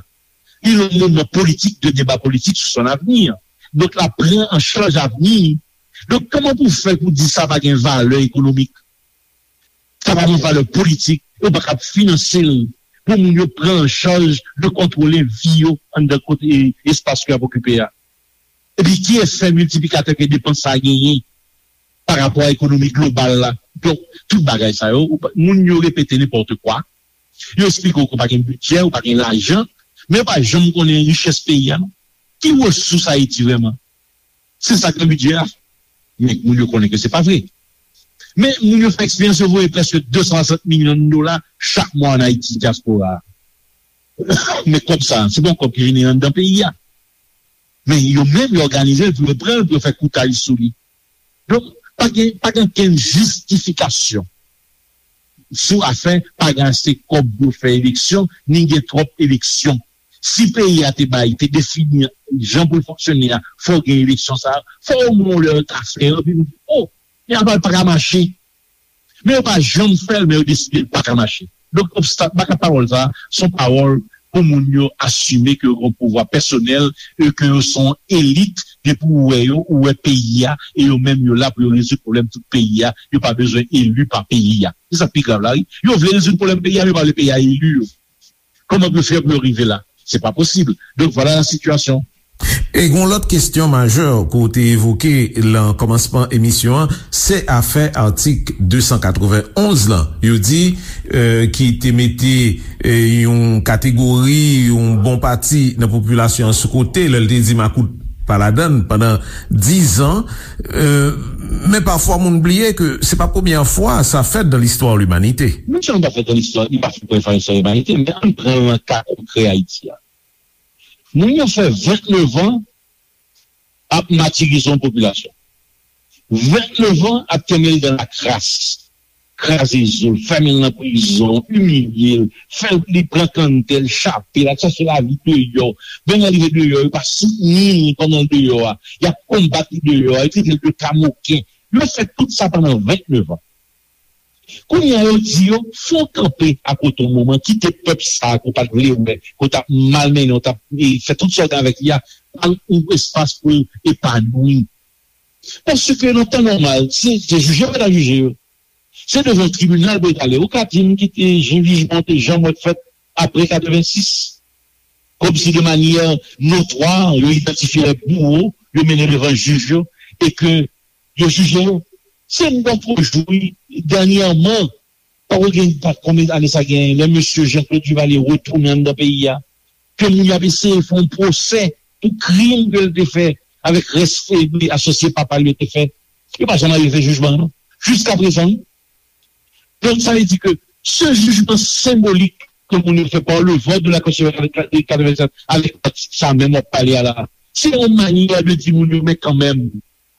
li nan moman politik de deba politik sou son avni. Donk, l ap pran an chaj avni. Donk, kòman pou fè pou di sa pa gen valè ekonomik? Sa pa gen valè politik, yo pa kab finanse l pou moun yo pran an chaj de kontwole vi yo anndan kote espas ke y ap okipe a. Epi ki efè miltiplikatè ke depans sa a genyen pa rapò a ekonomi global la? Donk, tout bagay sa yo, moun yo repete nenpòt kwa, yo eksplike w ke w pa gen bidjè, w pa gen lajan, men yo pa janm konnen richès peyi a non. Ki resous Ayiti vrèman? Se sa k nan bidjè a. Men moun yo konnen ke se pa vre. Men moun yo fè eksperyans, yo voye prèske de san swasant milyon dola chak mwa ann Ayiti, dyaspora a. Men kòb sa, se pa yon kòb ki vini anndan peyi a. Men yo menm, yo òganize l pou yo pran l, pou yo fè koutaj sou li. Donk, pa gen, pa gen okenn jistifikasyon sou afè pa gen ase kòb pou yo fè eleksyon, ni gen twòp eleksyon. Si peyi a te bay, te defini jan pou l fonksyone a, fò w gen eleksyon sa a, fò omwen yon lè yo ta fè yo, epi nou di, o, men apa l pa ka mache. Men yo pa janm fè l, men yo deside l pa ka mache. Donk, obstak, baka pawòl sa a, se yon pawòl pou moun yo asime ke yo gen yon pouvwa pèsonèl e ke yo se yon elit, depi ou wè yo, ou wè peyi a, e yo menm yo la pou yo rezoud pwoblèm tout peyi a, yo pa bezwen eli pa peyi a. Se sa k pi grav la, wi. Yo vle rezoud pwoblèm peyi a, men yo pa vle peyi a eli yo. Kòman pou yo fè pou yo rive la? Se pa posib. Donk, vwala la sitiyasyon. E gen yon lòt kesyon majè ke w te evoke nan kòmansman emisyon an, se afè atik de san katrevenn onz lan. Yo di, euh, ki te mete, euh, yon kategori, yon bon pati nan popilasyon an sou kote, lè l te di makout pa ladann pandan diz an. Euh, men pafwa moun bliye ke se pa premyè fwa sa fèt nan listwa limanite. Non sèlman pa fèt nan listwa, li pa fèt premyè fwa nan listwa limanite, men ann pran l nan ka konkrè Ayiti a. Moun yo fè vennnev an ap matirize yon popilasyon. Vennnev an ap kenbe l dan lakras, kraze zo l, fèmen l nan prizon, imilye l, fè l li pran kanntè l, chape l, al chache lavi deyò. Menm lè l rive deyò, yo pa soutni l pandan l deyò a. Y ap konbat li deyò a, yo trete l de kamoken. Yo fè tout sa pandan vennnev an. Kounye a yo di yo, fè w kanpe akote yon moman, kite pèp sa a ke w pa t vle wè, ke w t ap malmennen, w t ap e, fè tout sa w gen avèk li a, ba l yon espas pou l epanwi. Paske nan tan nòmal, se, se jije yo pa ta jije yo. Se devan tribinal pou yo t ale. Ou ka di m ki te jijman te janm wè fèt apre katrevensis? Kòmsi de manyè notwa, yo idantifye lè bouwo, yo mennen devan jij yo, e ke yo jije yo. Se m poko jwi dènyèman, poko gen pa konbyen ane sa genyen, lè mesye Jean Claude Duvalier retounen anndan peyi a, ke moun yo ap eseye fè yon pwosè pou krim ke l te fè avèk rès asosye papa l yo te fè. Yo pa janm arive fè jijman an non. Jiskaprezan, wi. Donk, sa vle di ke se jijman senbolik ke moun yo fè pa le vòt de la konstitisyon de katrevennsèt avèk atik sa menm w ap pale a la, se yon manyè de di moun yo, men kanmenm,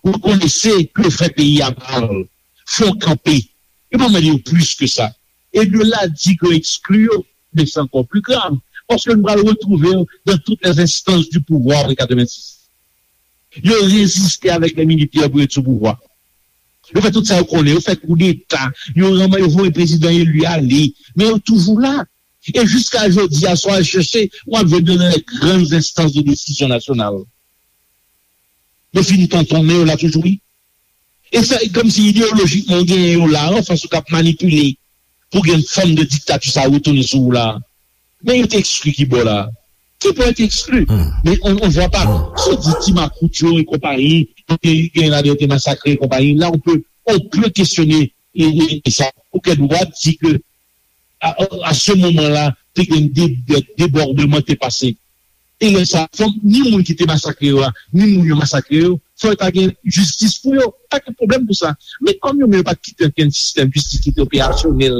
rekonese ke yo fè peyi a mal, fè w kanpe. Yo pa mande yo plis ke sa. E de la di ke yo ekskli yo, men se ankò pli grav. Paske nou pral retwouve yo dans toutes les instances du pouvoir de katrevensis. Yo reziste avèk lè militè pou yo sou pouvwa. Yo fè tout sa yo konnen, yo fè koudeta, yo ranman, yo voye prezidan eli ale, men yo toujou la. E jiska jodi a, si w al chèche, w ap jwenn yo nan les grandes instances de décision nationale. Yo fin tontonnen, yo la toujou, wi. E sa, e kòmsi ideyolojikman, w genyen yo la, anfas ou k ap manipile pou gen fòm de diktati sa retounen sou ou la. Men yo te ekskli ki bò la? Ki bò yo te ekskli? Men on, on vwa pa. Si w di ti makout yo e konpayi, yo te gen ladan yo te masakre e konpayi, la on pe, on pe kesyone e, e, e sa. Ou gen dwa di ke a, a se moman la, te gen de, de, debòdman te pase. E lè sa, fòk ni moun ki te masakre yo a, ni moun yo masakre yo, fò yo ta gen jistis pou yo. Pa gen pwoblèm pou sa. Men kòm yo menm yo pa t kite okenn sistèm jistis ki te operasyonèl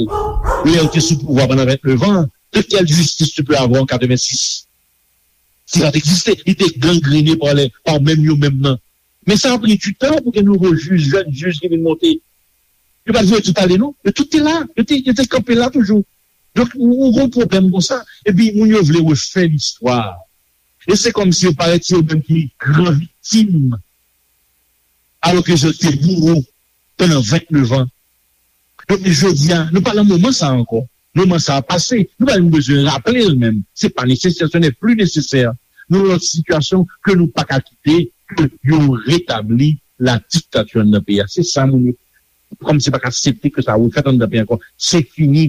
lè yo te sou pouvwa pandan vennnev an, De quelle justice tu peux avoir en quatre-vingt-six? Si sa te egziste, li te gangrene pa, pa menm yo menm nan. Men sa a pran du tan pou gen nouvo jij, jèn jij ki vin monte. Yo pa t voye tout ale, non. Yo tout te la. Yo te, yo te kanpe la toujou. Donk, ou, ou gen yon pwoblèm konsa. Epi, moun yo vle refè listwa. E se kòmsi yo parèt se yo menm ki gran viktim. Alòske yo te bouro pandan vennnev an. Donk, jodi a, nou pa nan moman sa a ankò. Moman sa a pase. Nou pa menm bezwen raple l menm. Se pa nesesè, ce n'est plus nécessaire. Nou nan yon sitiyasyon ke nou pa ka kite ke yo retabli la dictature anndan peyi a. Se sa moun yo, kòmsi pa ka aksepte ke sa refèt anndan peyi ankò. Se fini.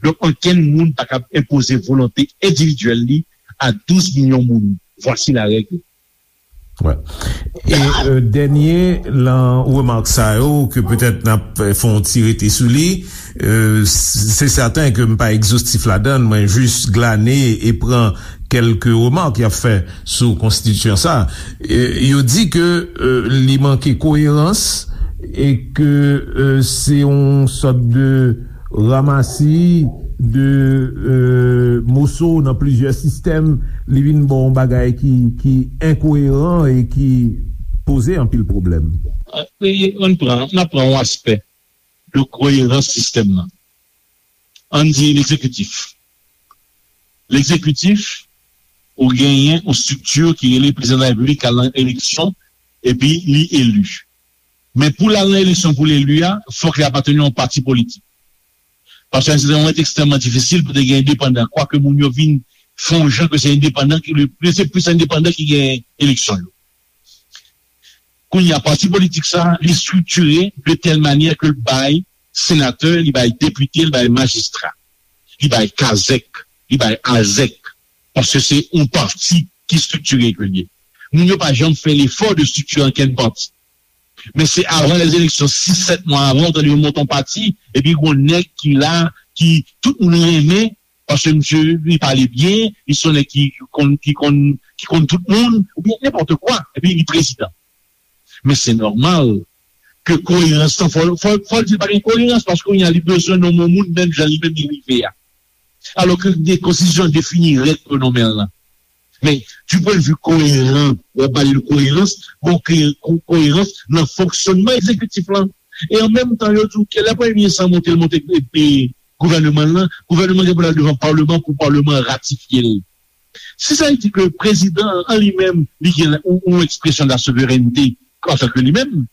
Donk, ankenn moun pa ka enpoze volonte endividyèl li a douz milyon moun. Voici la règle. Wè. E euh, dènye lan remak sa yo ke petèt n ap fè yon ti rete sou li, euh, se sèten ke m pa egzostif ladan l, mwen jis glane e pran kèlke remak y ap fè sou konstitisyon sa. E, yo di ke euh, li manke koerans e ke euh, se yon sòt de ramasi de euh, moso nan plizyè sistèm, li vin ba w yon bagay ki, ki enkoeran e ki poze anpil pwoblèm. Ann pran, n ap pran yon aspè de koerans sistèm nan. Ann di egzekitif. Egzekitif, ou genyen yon estrikti ki rele prezidan de la repiblik k al nan eleksyon epi li eli. Men pou l al nan eleksyon pou l eli a, fòk li apateni yon pati politik. Paske se yon ekstrèmman difisil pou te gen endepandan, kwake moun yo vin fè yon jan ke se endepandan ki, se plis endepandan ki gen eleksyon yo. Kounye a, pati politik sa, li estriktire de tèl manyè ke l bay senatè, li bay depite, li bay majistra, li bay kazèk, li bay azèk, paske se yon pati ki estriktire ke l ye. Moun yo pa janm fè lefò de estriktire ankenn pati. Men se avan lèzeleksyon, sis, sèt mwa avan, ou tande yo monte yon pati, epi gon nèg ki la, ki tout moun renmen, paske misye, li pale byen, li se yon nèg ki konn, ki konn, ki konn tout moun, oubyen nenpòt kwa, epi li prezidan. Men se nòmal ke koerans lan, fò, fò, fò l di l pa gen koerans, paske kounye a li bezwen nonmen yon moun menm jan li menm li rive a. Alòske konstitisyon an defini règ pou nonmen l lan. Men, du point de vue koeran, w ap pale de koerans, bon, koerans nan fonksyònman egzekitif lan. E an menm tan, yo di w ke lè premye minis lan monte, l monte gouvèneman l lan, gouvèneman gen pou l al devan palman pou palman an ratifye l. Si sa vle di ke prezidan an li menm, li gen yon ekspresyon de la souverènte antanke li menm,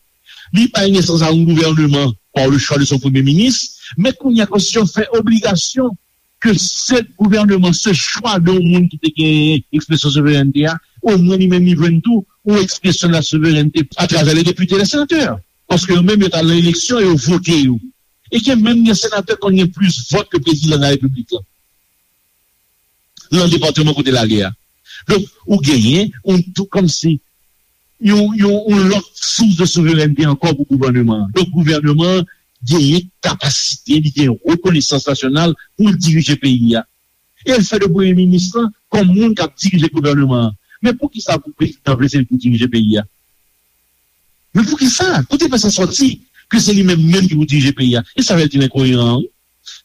li bay nesans a yon gouvèneman par le choix de son premye minis, men kounye a konstitisyon fè obligasyon ke se gouvèneman, se chwa de yon moun ki te gen ekspresyon souverènte a, omwen li menm li jwenn tou yon ekspresyon de la souverènte atravè le depite, le senatè. Paske yo menm yo t al nan eleksyon, yo vote yo. E gen menm gen senatè konn gen plis vòt ke prezidan de la repiblik lan. Nan depatman kote l ale a. Donk, ou genyen yon tou kòmsi yon, yon, yon lòt sous de souverènte ankò pou gouvèneman an. Donk, gouvèneman an genyen kapasite, li gen rekonesans nasyonal pou l dirije peyi a. E l fè de premye minis lan kòm moun k ap dirije gouvèneman an. Men poukisa pou prezidan vle se li pou dirije peyi a? Men poukisa? Kote fè sa sòti ke se li menm menm ki pou dirije peyi a? E sa fè l di l enkoeran an, wi.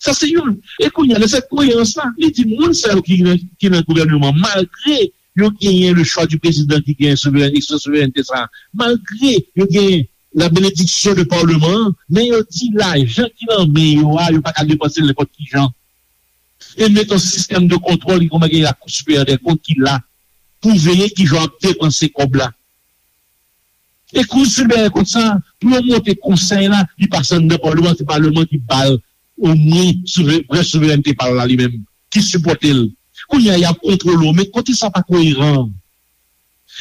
Sa se youn. E kounye a, nan sèt koerans la, li di moun sa yo ki nan, ki nan gouvèneman, malgre yo genyen le choix du président ki genyen souveren, ekspresyon souverènte sa, malgre yo genyen la bénédiction de palman an, men yo di lajan ki nan men yo a, yo pa ka depanse l nenpòt ki jan. E met yon sistèm de kontwòl ki kòman gen la Cour supérieure des comptes ki la pou veye ki jan w ap depanse kòb la. E Kou Siperyè Kont sa, pou yo monte konsèy la, li pase anndan palman, se palman ki ba l omwen vrè souverènte pa l la li menm, ki sipòte l. Kounye a, y ap kontwole w, men kote sa pa koeran?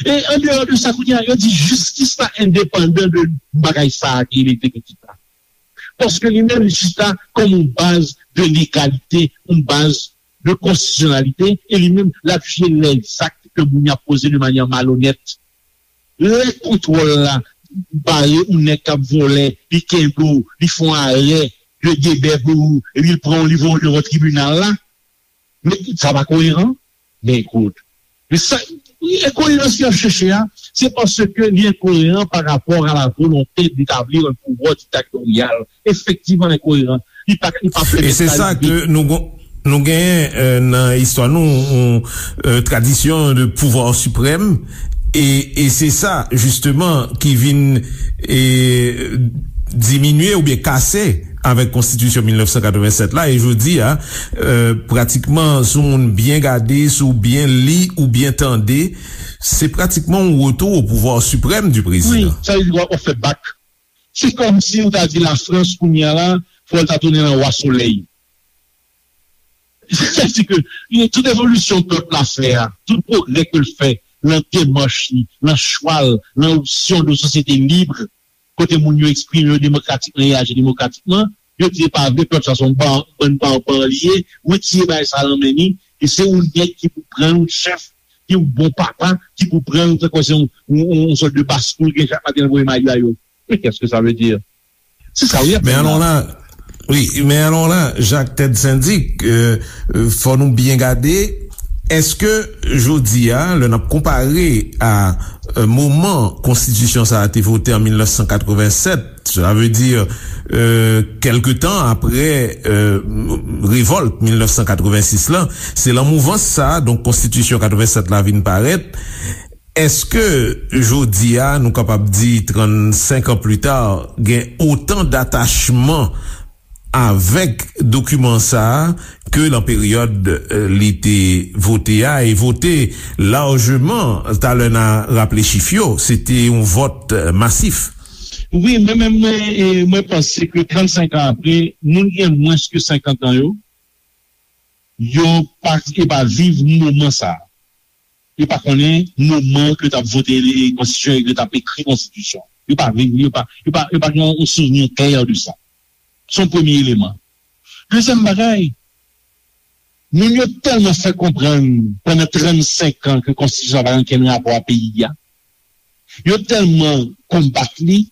E andeyò de sa, kounye a, yo di jistis la endepandan de bagay sa a ki egzekitif la. Paske li menm, jistis la kòm yon baz de legalite, yon baz de konstitisyonalite, e li menm, l ap jije lèzak ke moun y ap poze de manyè malonèt. Lè kontwòl la bare yon nèg k ap vòlè, li kenbe w, li fè yon arè de debè pou ou, epi l pran w, li voye w devan tribinal la, men sa pa koeran? Men ekout, men sa, enkoerans ke y ap chèche a, se paske li enkoeran pa rapò a la volonte d'établir un pouvoir dictatorial. Efektivman, l enkoeran. Li pa, li pa pèmèt sa rive. Nou genyen nan istwa nou yon tradisyon de pouvwa siprèm, e se sa jisteman ki vin diminye oubyen kase avèk konstitisyon mil nèf san katrevennsèt la. E jodi a, pratikman, si w moun byen gade, si w byen li ou byen tande, se pratikman yon retou o pouvwa siprèm di prezidan. Wi, sa vle di w ap fè bak. Se kòmsi ou ta di Lafrans kounye a la, fò l ta tounen nan wa solèy. Sètadi ke tout evolisyon pèp la fè a, tout pwogrè ke l fè nan demach li, nan chwa l, nan opsyon de sosyete lib, kote moun yo eksprime yo demokratikman e aji demokratikman, yo di pa vre, pèp sa se yon bann banban li ye, retire bagay sa nan men li, e se yon nèg ki pou pran yon chèf, ki yon bon papa, ki pou pran yon, tankou se yon, yon, yon sòt de baskoul gen chak maten nan voye mayo a yo. Men kèske sa vle di? Se sa wi. Men alò la, wi, men alò la, Jacques Ted Syndic, fò nou byen gade, èske jodi a, lè n ap konpare a moman konstitisyon sa a te vote an mil nèf san katrevennsèt, sa vle di kèlke tan apre revòlt mil nèf san katrevensis la, se lan mouvans sa a, donk konstitisyon katrevennsèt la vin parèt. Èske jodi a, nou kapab di trannsenk an pli ta, gen otan datachman avèk dokiman sa a ke lan peryòd li te vote a, e vote lajman? Talè n a raple chif yo, se te yon vòt masif. Wi, men menm mwen, mwen panse ke trannsenk an apre, moun ki gen mwens ke senkant an yo, yo pa, yo pa viv moman sa a. Yo pa konnen moman ke yo t ap vote konstitisyon e ke yo t ap ekri konstitisyon. Yo pa viv li, yo pa, yo pa, yo pa gen yon souvni klè de sa. Se yon premye eleman. Dezyèm bagay, moun yo tèlman fè konprann pandan trannsenk an ke konstitisyon sa pa gen okenn rapò a peyi a. Yo tèlman konbat li,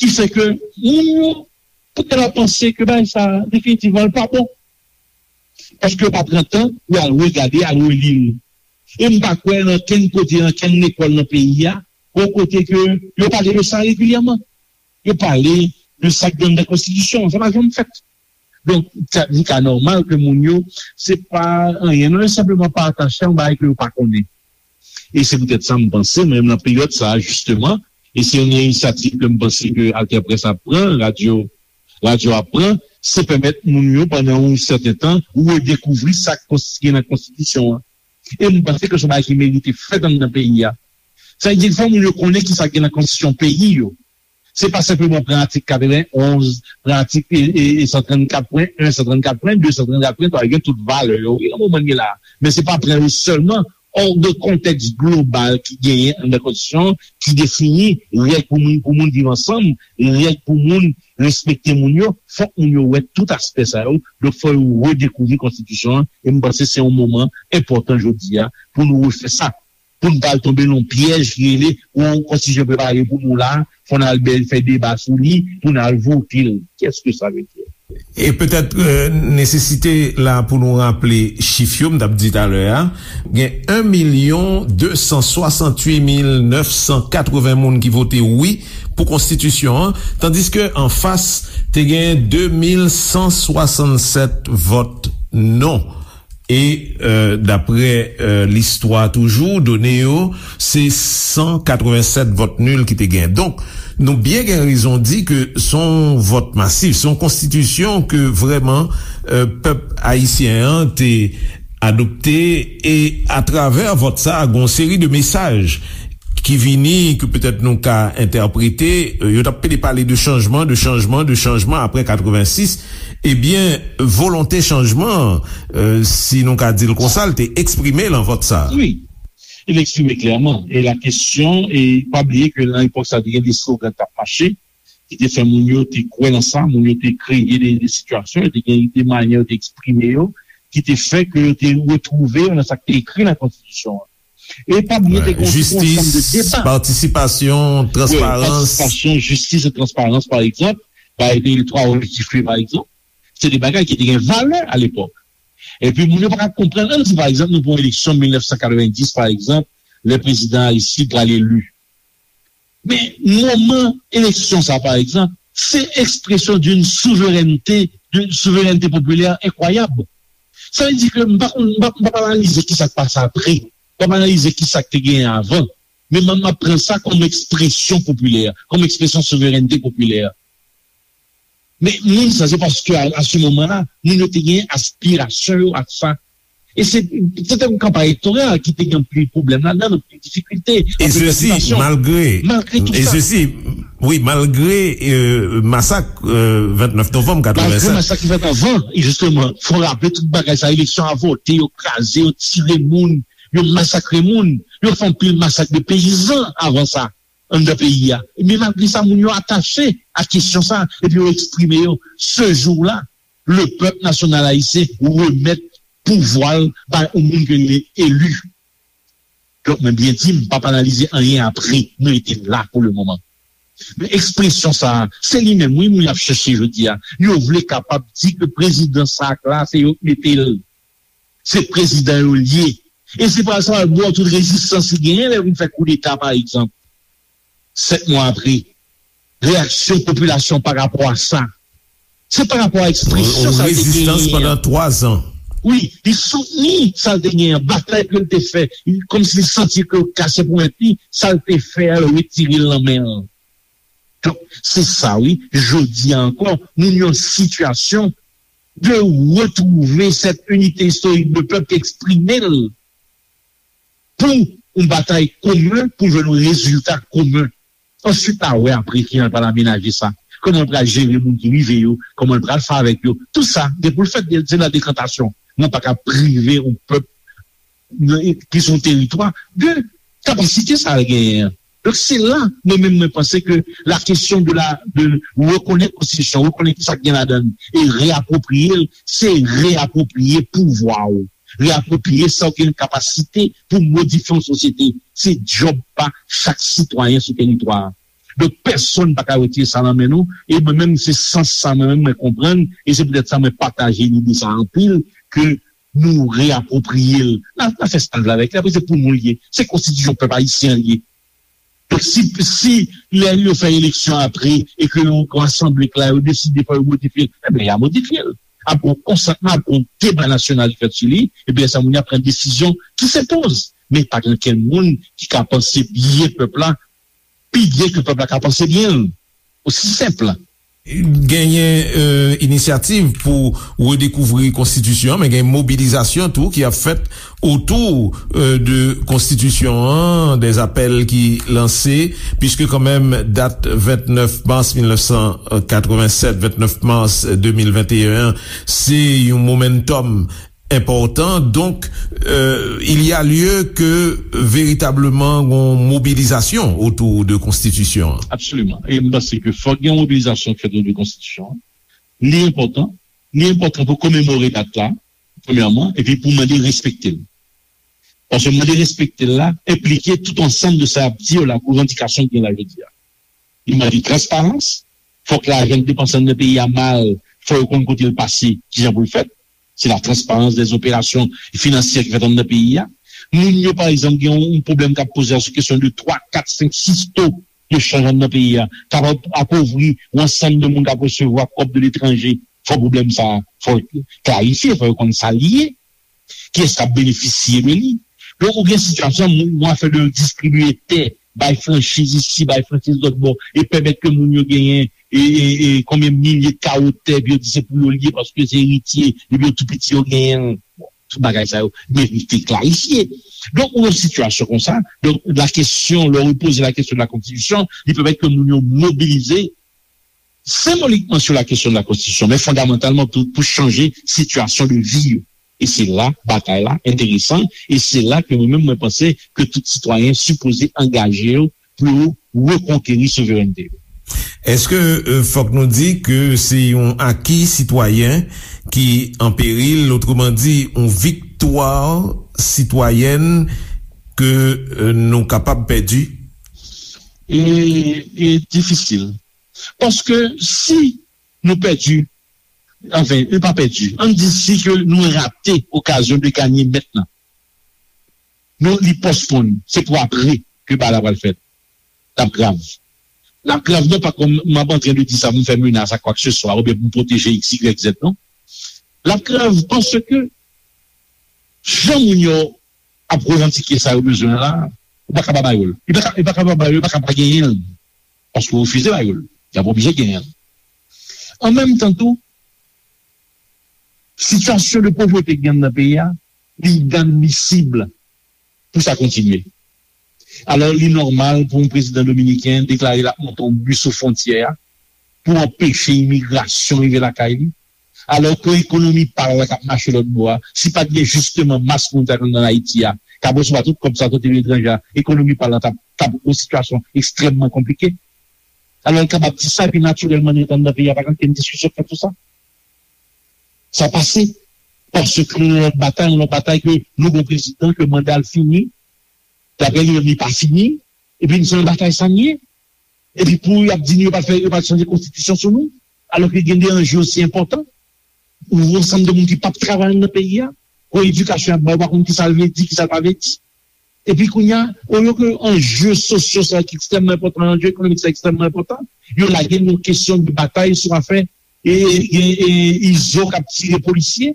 ki fè ke moun yo poutèt ap panse ke bagay sa definitivman l pa bon. Paske yo pa pran tan pou al regade, al reli l. E m pa kwè nan kenn kote, nan kenn lekòl nan peyi a, gon kote ke yo pale de sa regilyèman. Yo pale de sa k gen anndan konstitisyon an. Sa pa janm fèt. Donk, sa, li ka nòmal ke moun yo, se pa anyen, non, yo senpleman pa atache a yon bagay ke yo pa konnen. E se poutèt sa m panse, mwen menm nan peryòd sa a, jisteman, e se yon inisyativ ke m panse ke Alter Presse ap pran, radyo, radyo ap pran, se pèmèt moun yo pandan yon sèten tan redekouvri sa k konsti-, gen nan konstitisyon an. E m panse ke se yon bagay ki merite fèt anndan peyi a. Sa vle di, fò moun yo konnen ki sa k gen nan konstitisyon peyi yo. Se pa senpleman pran atik katrevenn onz, pran atik, e, e, e, san trannkat pwen en, san trannkat pwen de, san trannkat pwen twa, yo gen tout valè yo, wi, nan moman n ye la a. Men se pa pran yo sèlman, hors de kontèks global ki genyen anndan konstitisyon an, ki defini règ pou moun, pou moun viv ansanm, règ pou moun respekte moun yo, fòk moun yo wè tout aspè sa yo. Donk, fò yo redekouvri konstitisyon an, e m panse se yon moman enpòtan jodi a pou nou refè sa. Pou n pa al tonbe nan yon pyèj ki rele yon konstitisyon prepare pou nou la, fò n al bèl fè deba sou li, pou n al vote l. Kèske sa vle di? E petèt, euh, nesesite la pou nou raple chif yo, m t ap di talè a, gen en milyon de san swasanntuit mil nèf san katreven moun ki vote wi pou konstitisyon an, tandiske anfas te gen de mil san swasannsèt vòt non. E, euh, daprè, euh, listwa toujou, done yo, se san katrevennsèt vòt nil ki te gen. Donk, nou byen gen rezon di ke se yon vòt masif, se yon konstitisyon ke vrèman, euh, pèp ayisyen an te adopte, e atravè vòt sa a, gen yon seri de mesaj ki vini, ke petèt nou ka entèprete, euh, yo t ap pede pale de chanjman, de chanjman, de chanjman apre katrevensis. Ebyen, volonte chanjman an, euh, si nou ka di l konsa, l te eksprime lan vòt sa a. Wi, li eksprime klèman. E la kesyon, e pa bliye ke nan epòk sa a, te gen de slogan k t ap mache, ki te fè moun yo te kwè nan sa, moun yo te kreye de, de sitiyasyon, te gen de manyè yo te eksprime yo, ki te fè ke yo te retwouve yo nan sa k te ekri nan konstitisyon an. E pa bliye, te gen tout yon ansanm de deba. Jistis, patisipasyon, transparans. Wi, patisipasyon, jistis e transparans, pa egzanp, ba, e de twa objektif yo, pa egzanp, se de bagay ki te gen valè alepòk. Epi, moun yo pa ka konprann, ann di, pa egzanp, nou pran eleksyon mil nèf san katrevenndis, pa egzanp, lè prezidan Aristide pral eli. Men, moman eleksyon sa, pa egzanp, se ekspresyon d'une souveraineté, d'une souveraineté populaire incroyable. Sa vle di ke m pa konn, m p ap, m p ap analize ki sa k pase apre. M p ap analize ki sa k te genyen avan. Men m, m ap pran sa kòm ekspresyon popilè, kòm ekspresyon souverènte popilè. Men moun sa, se paske a, a se moman la, moun yo te gen aspirasyon yo ak sa. E se, se te yon kanpay elektoral ki te gen anpil pwoblèm ladan, anpil difikilte, E anpil sesi, tribisyon. Malgre, malgre tout e sa. Sesi, wi, malgre euh, masak euh, vennèf novanm katrevennsèt. Malgre masak ki fèt avan, e jisteman, fò raple tout bagay sa, eleksyon avòte, yo kraze, yo tire moun, yo masakre moun, yo fè anpil masak de peyizan avan sa, anndan peyi a. Men malgre sa, moun yo atache ak kesyon sa, epi yo eksprime yo. Se jou la, le pèp nasyonal ayisyen remèt pouvwa l bay yon moun ke li eli. Donk, mwen byen di, m p ap analize anyen apre, nou rete la pou le moman. Men ekspresyon sa a, se li menm, wi, moun y ap chèche jodi a. Yo vle kapab di ke prezidan sa a k la, se yo k mete l. Se prezidan yo l ye. E se pa sa, l ba w tout rezistans li genyen lè l vin fè koudeta, pa egzanp. Sèt mwa apre, reyaksyon popilasyon pa rapò a sa. Se pa rapò a ekspresyon sa l te genyen an. Yon rezistans pandan twa zan. Wi, li soutni sa l te genyen an, batay ke l te fè, kòmsi li santi ke l kase pou mèt li, sa l te fè a, yo retire l nan men l. Donk, se sa wi, jodi a ankò, nou nan yon sitiyasyon de retwouve sèt inite istorik de pèp ki eksprime l pou yon batay komen, pou jwenn yon rezilta komen. Answit, n a wè apre kijan l pral amenaje sa. Kòman l pral jere moun ki rive yo, kòman l pral fè avèk yo. Tout sa, gen pou l fèt, se la dekantasyon. Mwen pa ka prive yon pèp ki sou yon teritwa de kapasite sa l genyen an. Donk, se la, mwen menm, mwen panse ke la kesyon de la, de rekonèt konstitisyon, rekonèt ki sa k gen ladan l, e reapwopriye l, se reapwopriye pouvwa w. Reapwopriye sa w gen kapasite pou modifye yon sosyete. Se djòb pa chak sitwayen sou teritwa a. Donk, pèsonn pa ka retire sa nan men nou. E mwen menm, se sans sa mwen menm mwen konprann. E se poutèt sa mwen pataje lide sa anpil, ke nou reapwopriye l. N a, n a fè sa n vle avèk li. Apre, se pou nou l ye. Se konstitisyon pèp ayisyen an l ye. Donk, si, si lè yo fè eleksyon apre e ke yon, yon asanble k la, yo deside fò yo modifye l, ebyen, y a modifye l. Ap gen yon konsantman, ap gen yon deba nasyonal ki fèt sou li, epi lè sa moun yo ap pran desizyon ki se poz. Men pa gen okenn moun ki ka panse byen pèp la pi byen ke pèp la ka panse byen l. Osi senp. Genyen euh, inisyativ pou redekouvri konstitisyon an, men gen mobilizasyon tou ki ap fèt otou euh, de konstitisyon an, des apèl ki lanse, piske kanmenm dat vennèf mas mil nèf san katrevennsèt, vennèf mas de mil venteyen an, se yon momentum enpòtan. Donk, euh, il y a lieu que veritableman gon mobilizasyon otou de konstitisyon an. Absoliman. E m panse ke fòk gen yon mobilizasyon ki fèt otou de konstitisyon an. Li enpòtan. Li enpòtan pou komemore dat la, premyèman, epi pou mande respekte l. Paske mande respekte l la enplike tout ansanm de sa y ap di yo la, revandikasyon ki gen la jodi a. Li mande transparans, fòk lajan k depanse anndan peyi a mal, fò yo konn kote l pase, kijan pou l fèt. Se la transparans dè zoperasyon finansyè ki fèt anndan peyi a. Moun yo, pa egzanp, gen yon, yon pwoblèm k ap poze a sou kesyon de twa, kat, senk, sis to de chanj anndan peyi a, k ap apovri yon ansanm de moun k ap resevwa kòb de letranje. Fò pwoblèm sa a, fò l klarifye, fò yo konn sa l ye. Kiyès k ap benefisye de li? Donk, ou gen sitiyasyon, moun, yon afè de distribiye tè, bay franchiz isi, bay franchiz lòt bò, e pèmèt ke moun yo genyen e, e, e konbyen milye kawo tè, epi yo di se pou yo l ye paske se eritye, epi yo tou piti yo genyen l. Bon, tout bagay sa yo merite klarifye. Donk, ou nan sitiyasyon konsa, donk, la kesyon, lè w poze la kesyon de la konstitisyon, li pèmèt ke moun yo mobilize senbolikman sou la kesyon de la konstitisyon, men fondamantalman pou, pou chanje sitiyasyon de vi yo. E se la batay la enteresan, e se la ke mwen menm mwen panse ke tout sitwayen sipoze angaje yo pou yo rekonkeri souverènte yo. Èske euh, fòk nou di ke se yon aki sitwayen ki an peril, otreman di, yon viktwa sitwayèn ke euh, nou kapab pèdi? E, e difisil. Paske si nou pèdi, anfen, nou pa pèdi, ann di si ke nou rate okazyon de ganye mèt lan. Nou, li pòsponn, se pou apre ke bagay la pral fèt. L ap grav. L ap grav non pa kòm m ap antren de di sa pou m fè menas a kwakseswa oubyen pou m pwoteje X, Y, Z non. L ap grav paske Jan moun yo ap revandike sa yo bezwen la, ou pa ka pa ba yo l. Li pa ka, li pa ka pa ba yo l, li pa ka pa genyen l. Paske w refize ba yo l. Y ap oblije genyen l. An menm tan tou, sitiyasyon de povrete ki gen nan peyi a, li inadmisib pou sa kontinye. Alò, li nòmal pou yon prezidan dominiken deklare l ap monte yon bi sou fwontyè a pou anpeche imigrasyon rive lakay li. Alò ke ekonomi pa l la k ap mache lòt bò a, si pa t gen jisteman mas moun sa yo nan Ayiti a, k ap resevwa tout kòb sa yo soti letranje a, ekonomi pa l la t ap, t ap yon sitiyasyon ekstrèmman konplike. Alò, l kapab di sa, epi natirèlman, nou t anndan peyi a, pa t ap gen diskisyon k fèt sou sa. Sa pase. Paske nou nan lòt batay, yon lòt batay ke nou gon prezidan ke manda l fini, daprè li menm li pa fini, epi nou se nan batay sa n ye. Epi pou y ap di nou yo pa fè, yo pa chanje konstitisyon sou nou, alòske gen de anje osi enpòtan. Ou yon ansanm de moun ki p ap travay nan peyi a, pou edikasyon y ap bay, ou pa konn ki sa l vle di, ki sa l pa vle di. Epi kounye a, olye ke anje sosyo sa ki ekstrèmman enpòtan, anje ekonomik sa ekstrèmman enpòtan, yo lage nou kesyon de batay sou afè e, e, e, e Izo k ap tire polisye,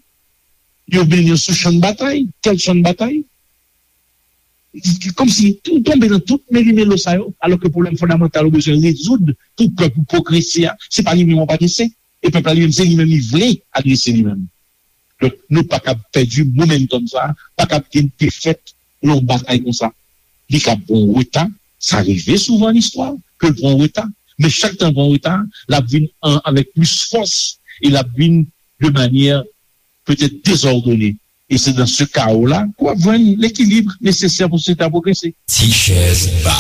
yo mennen yo sou chan batay. Kèl chan batay? Kòmsi ou tonbe nan tout melimelo sa yo, alòske pwoblèm fondamantal ou bezwen rezoud pou pèp ou pwogrese a, se pa li menm w ap adrese. E pèp la li menm, se li menm li vle adrese li menm. Donk, nou pa kab pèdi momentum sa, pa kab gen defèt nan yon batay konsa. Li kab pran reta, sa rive souvan nan istwa, ke l pran reta. Men chak tan l pran reta, l ap vin an, avèk plis fòs, e l ap vin de manyè petèt dezòdone. E se nan se kawo la ke w ap jwenn lekilib nesesè pou sosyete a pwogrese. Ti chèz ba.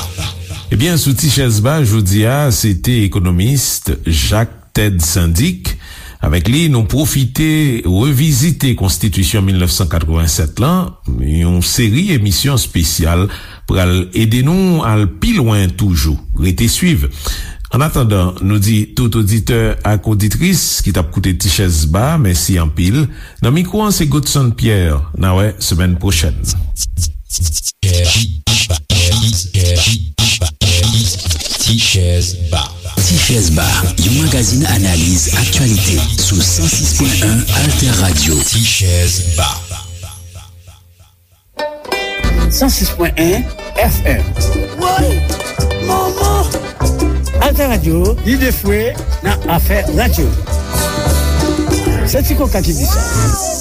Ebyen, sou Ti chèz ba, jodi a, se te ekonomis Jacques Ted Syndic. Avèk li, nou pwofite revizite Konstitisyon mil nèf san katrevennsèt lan. Yon seri emisyon espesyal pral ede nou al pi lwen toujou. Rete swiv. Annatandan, nou di tout oditè ak oditris ki t ap koute Ti Chèz Ba, mèsi anpil. Nan mikwo an, se Godson Pierre. N a wè semèn pwochèn. Ti Chèz Ba. Ti Chèz Ba, yon magazin analiz aktyalite sou san sis pwen en Alter Radio. Ti Chèz Ba. San sis pwen en F M. Woy! Manman! Alter Radio, lide fwe nan afè radyo. Se Ti Koka ki di sa.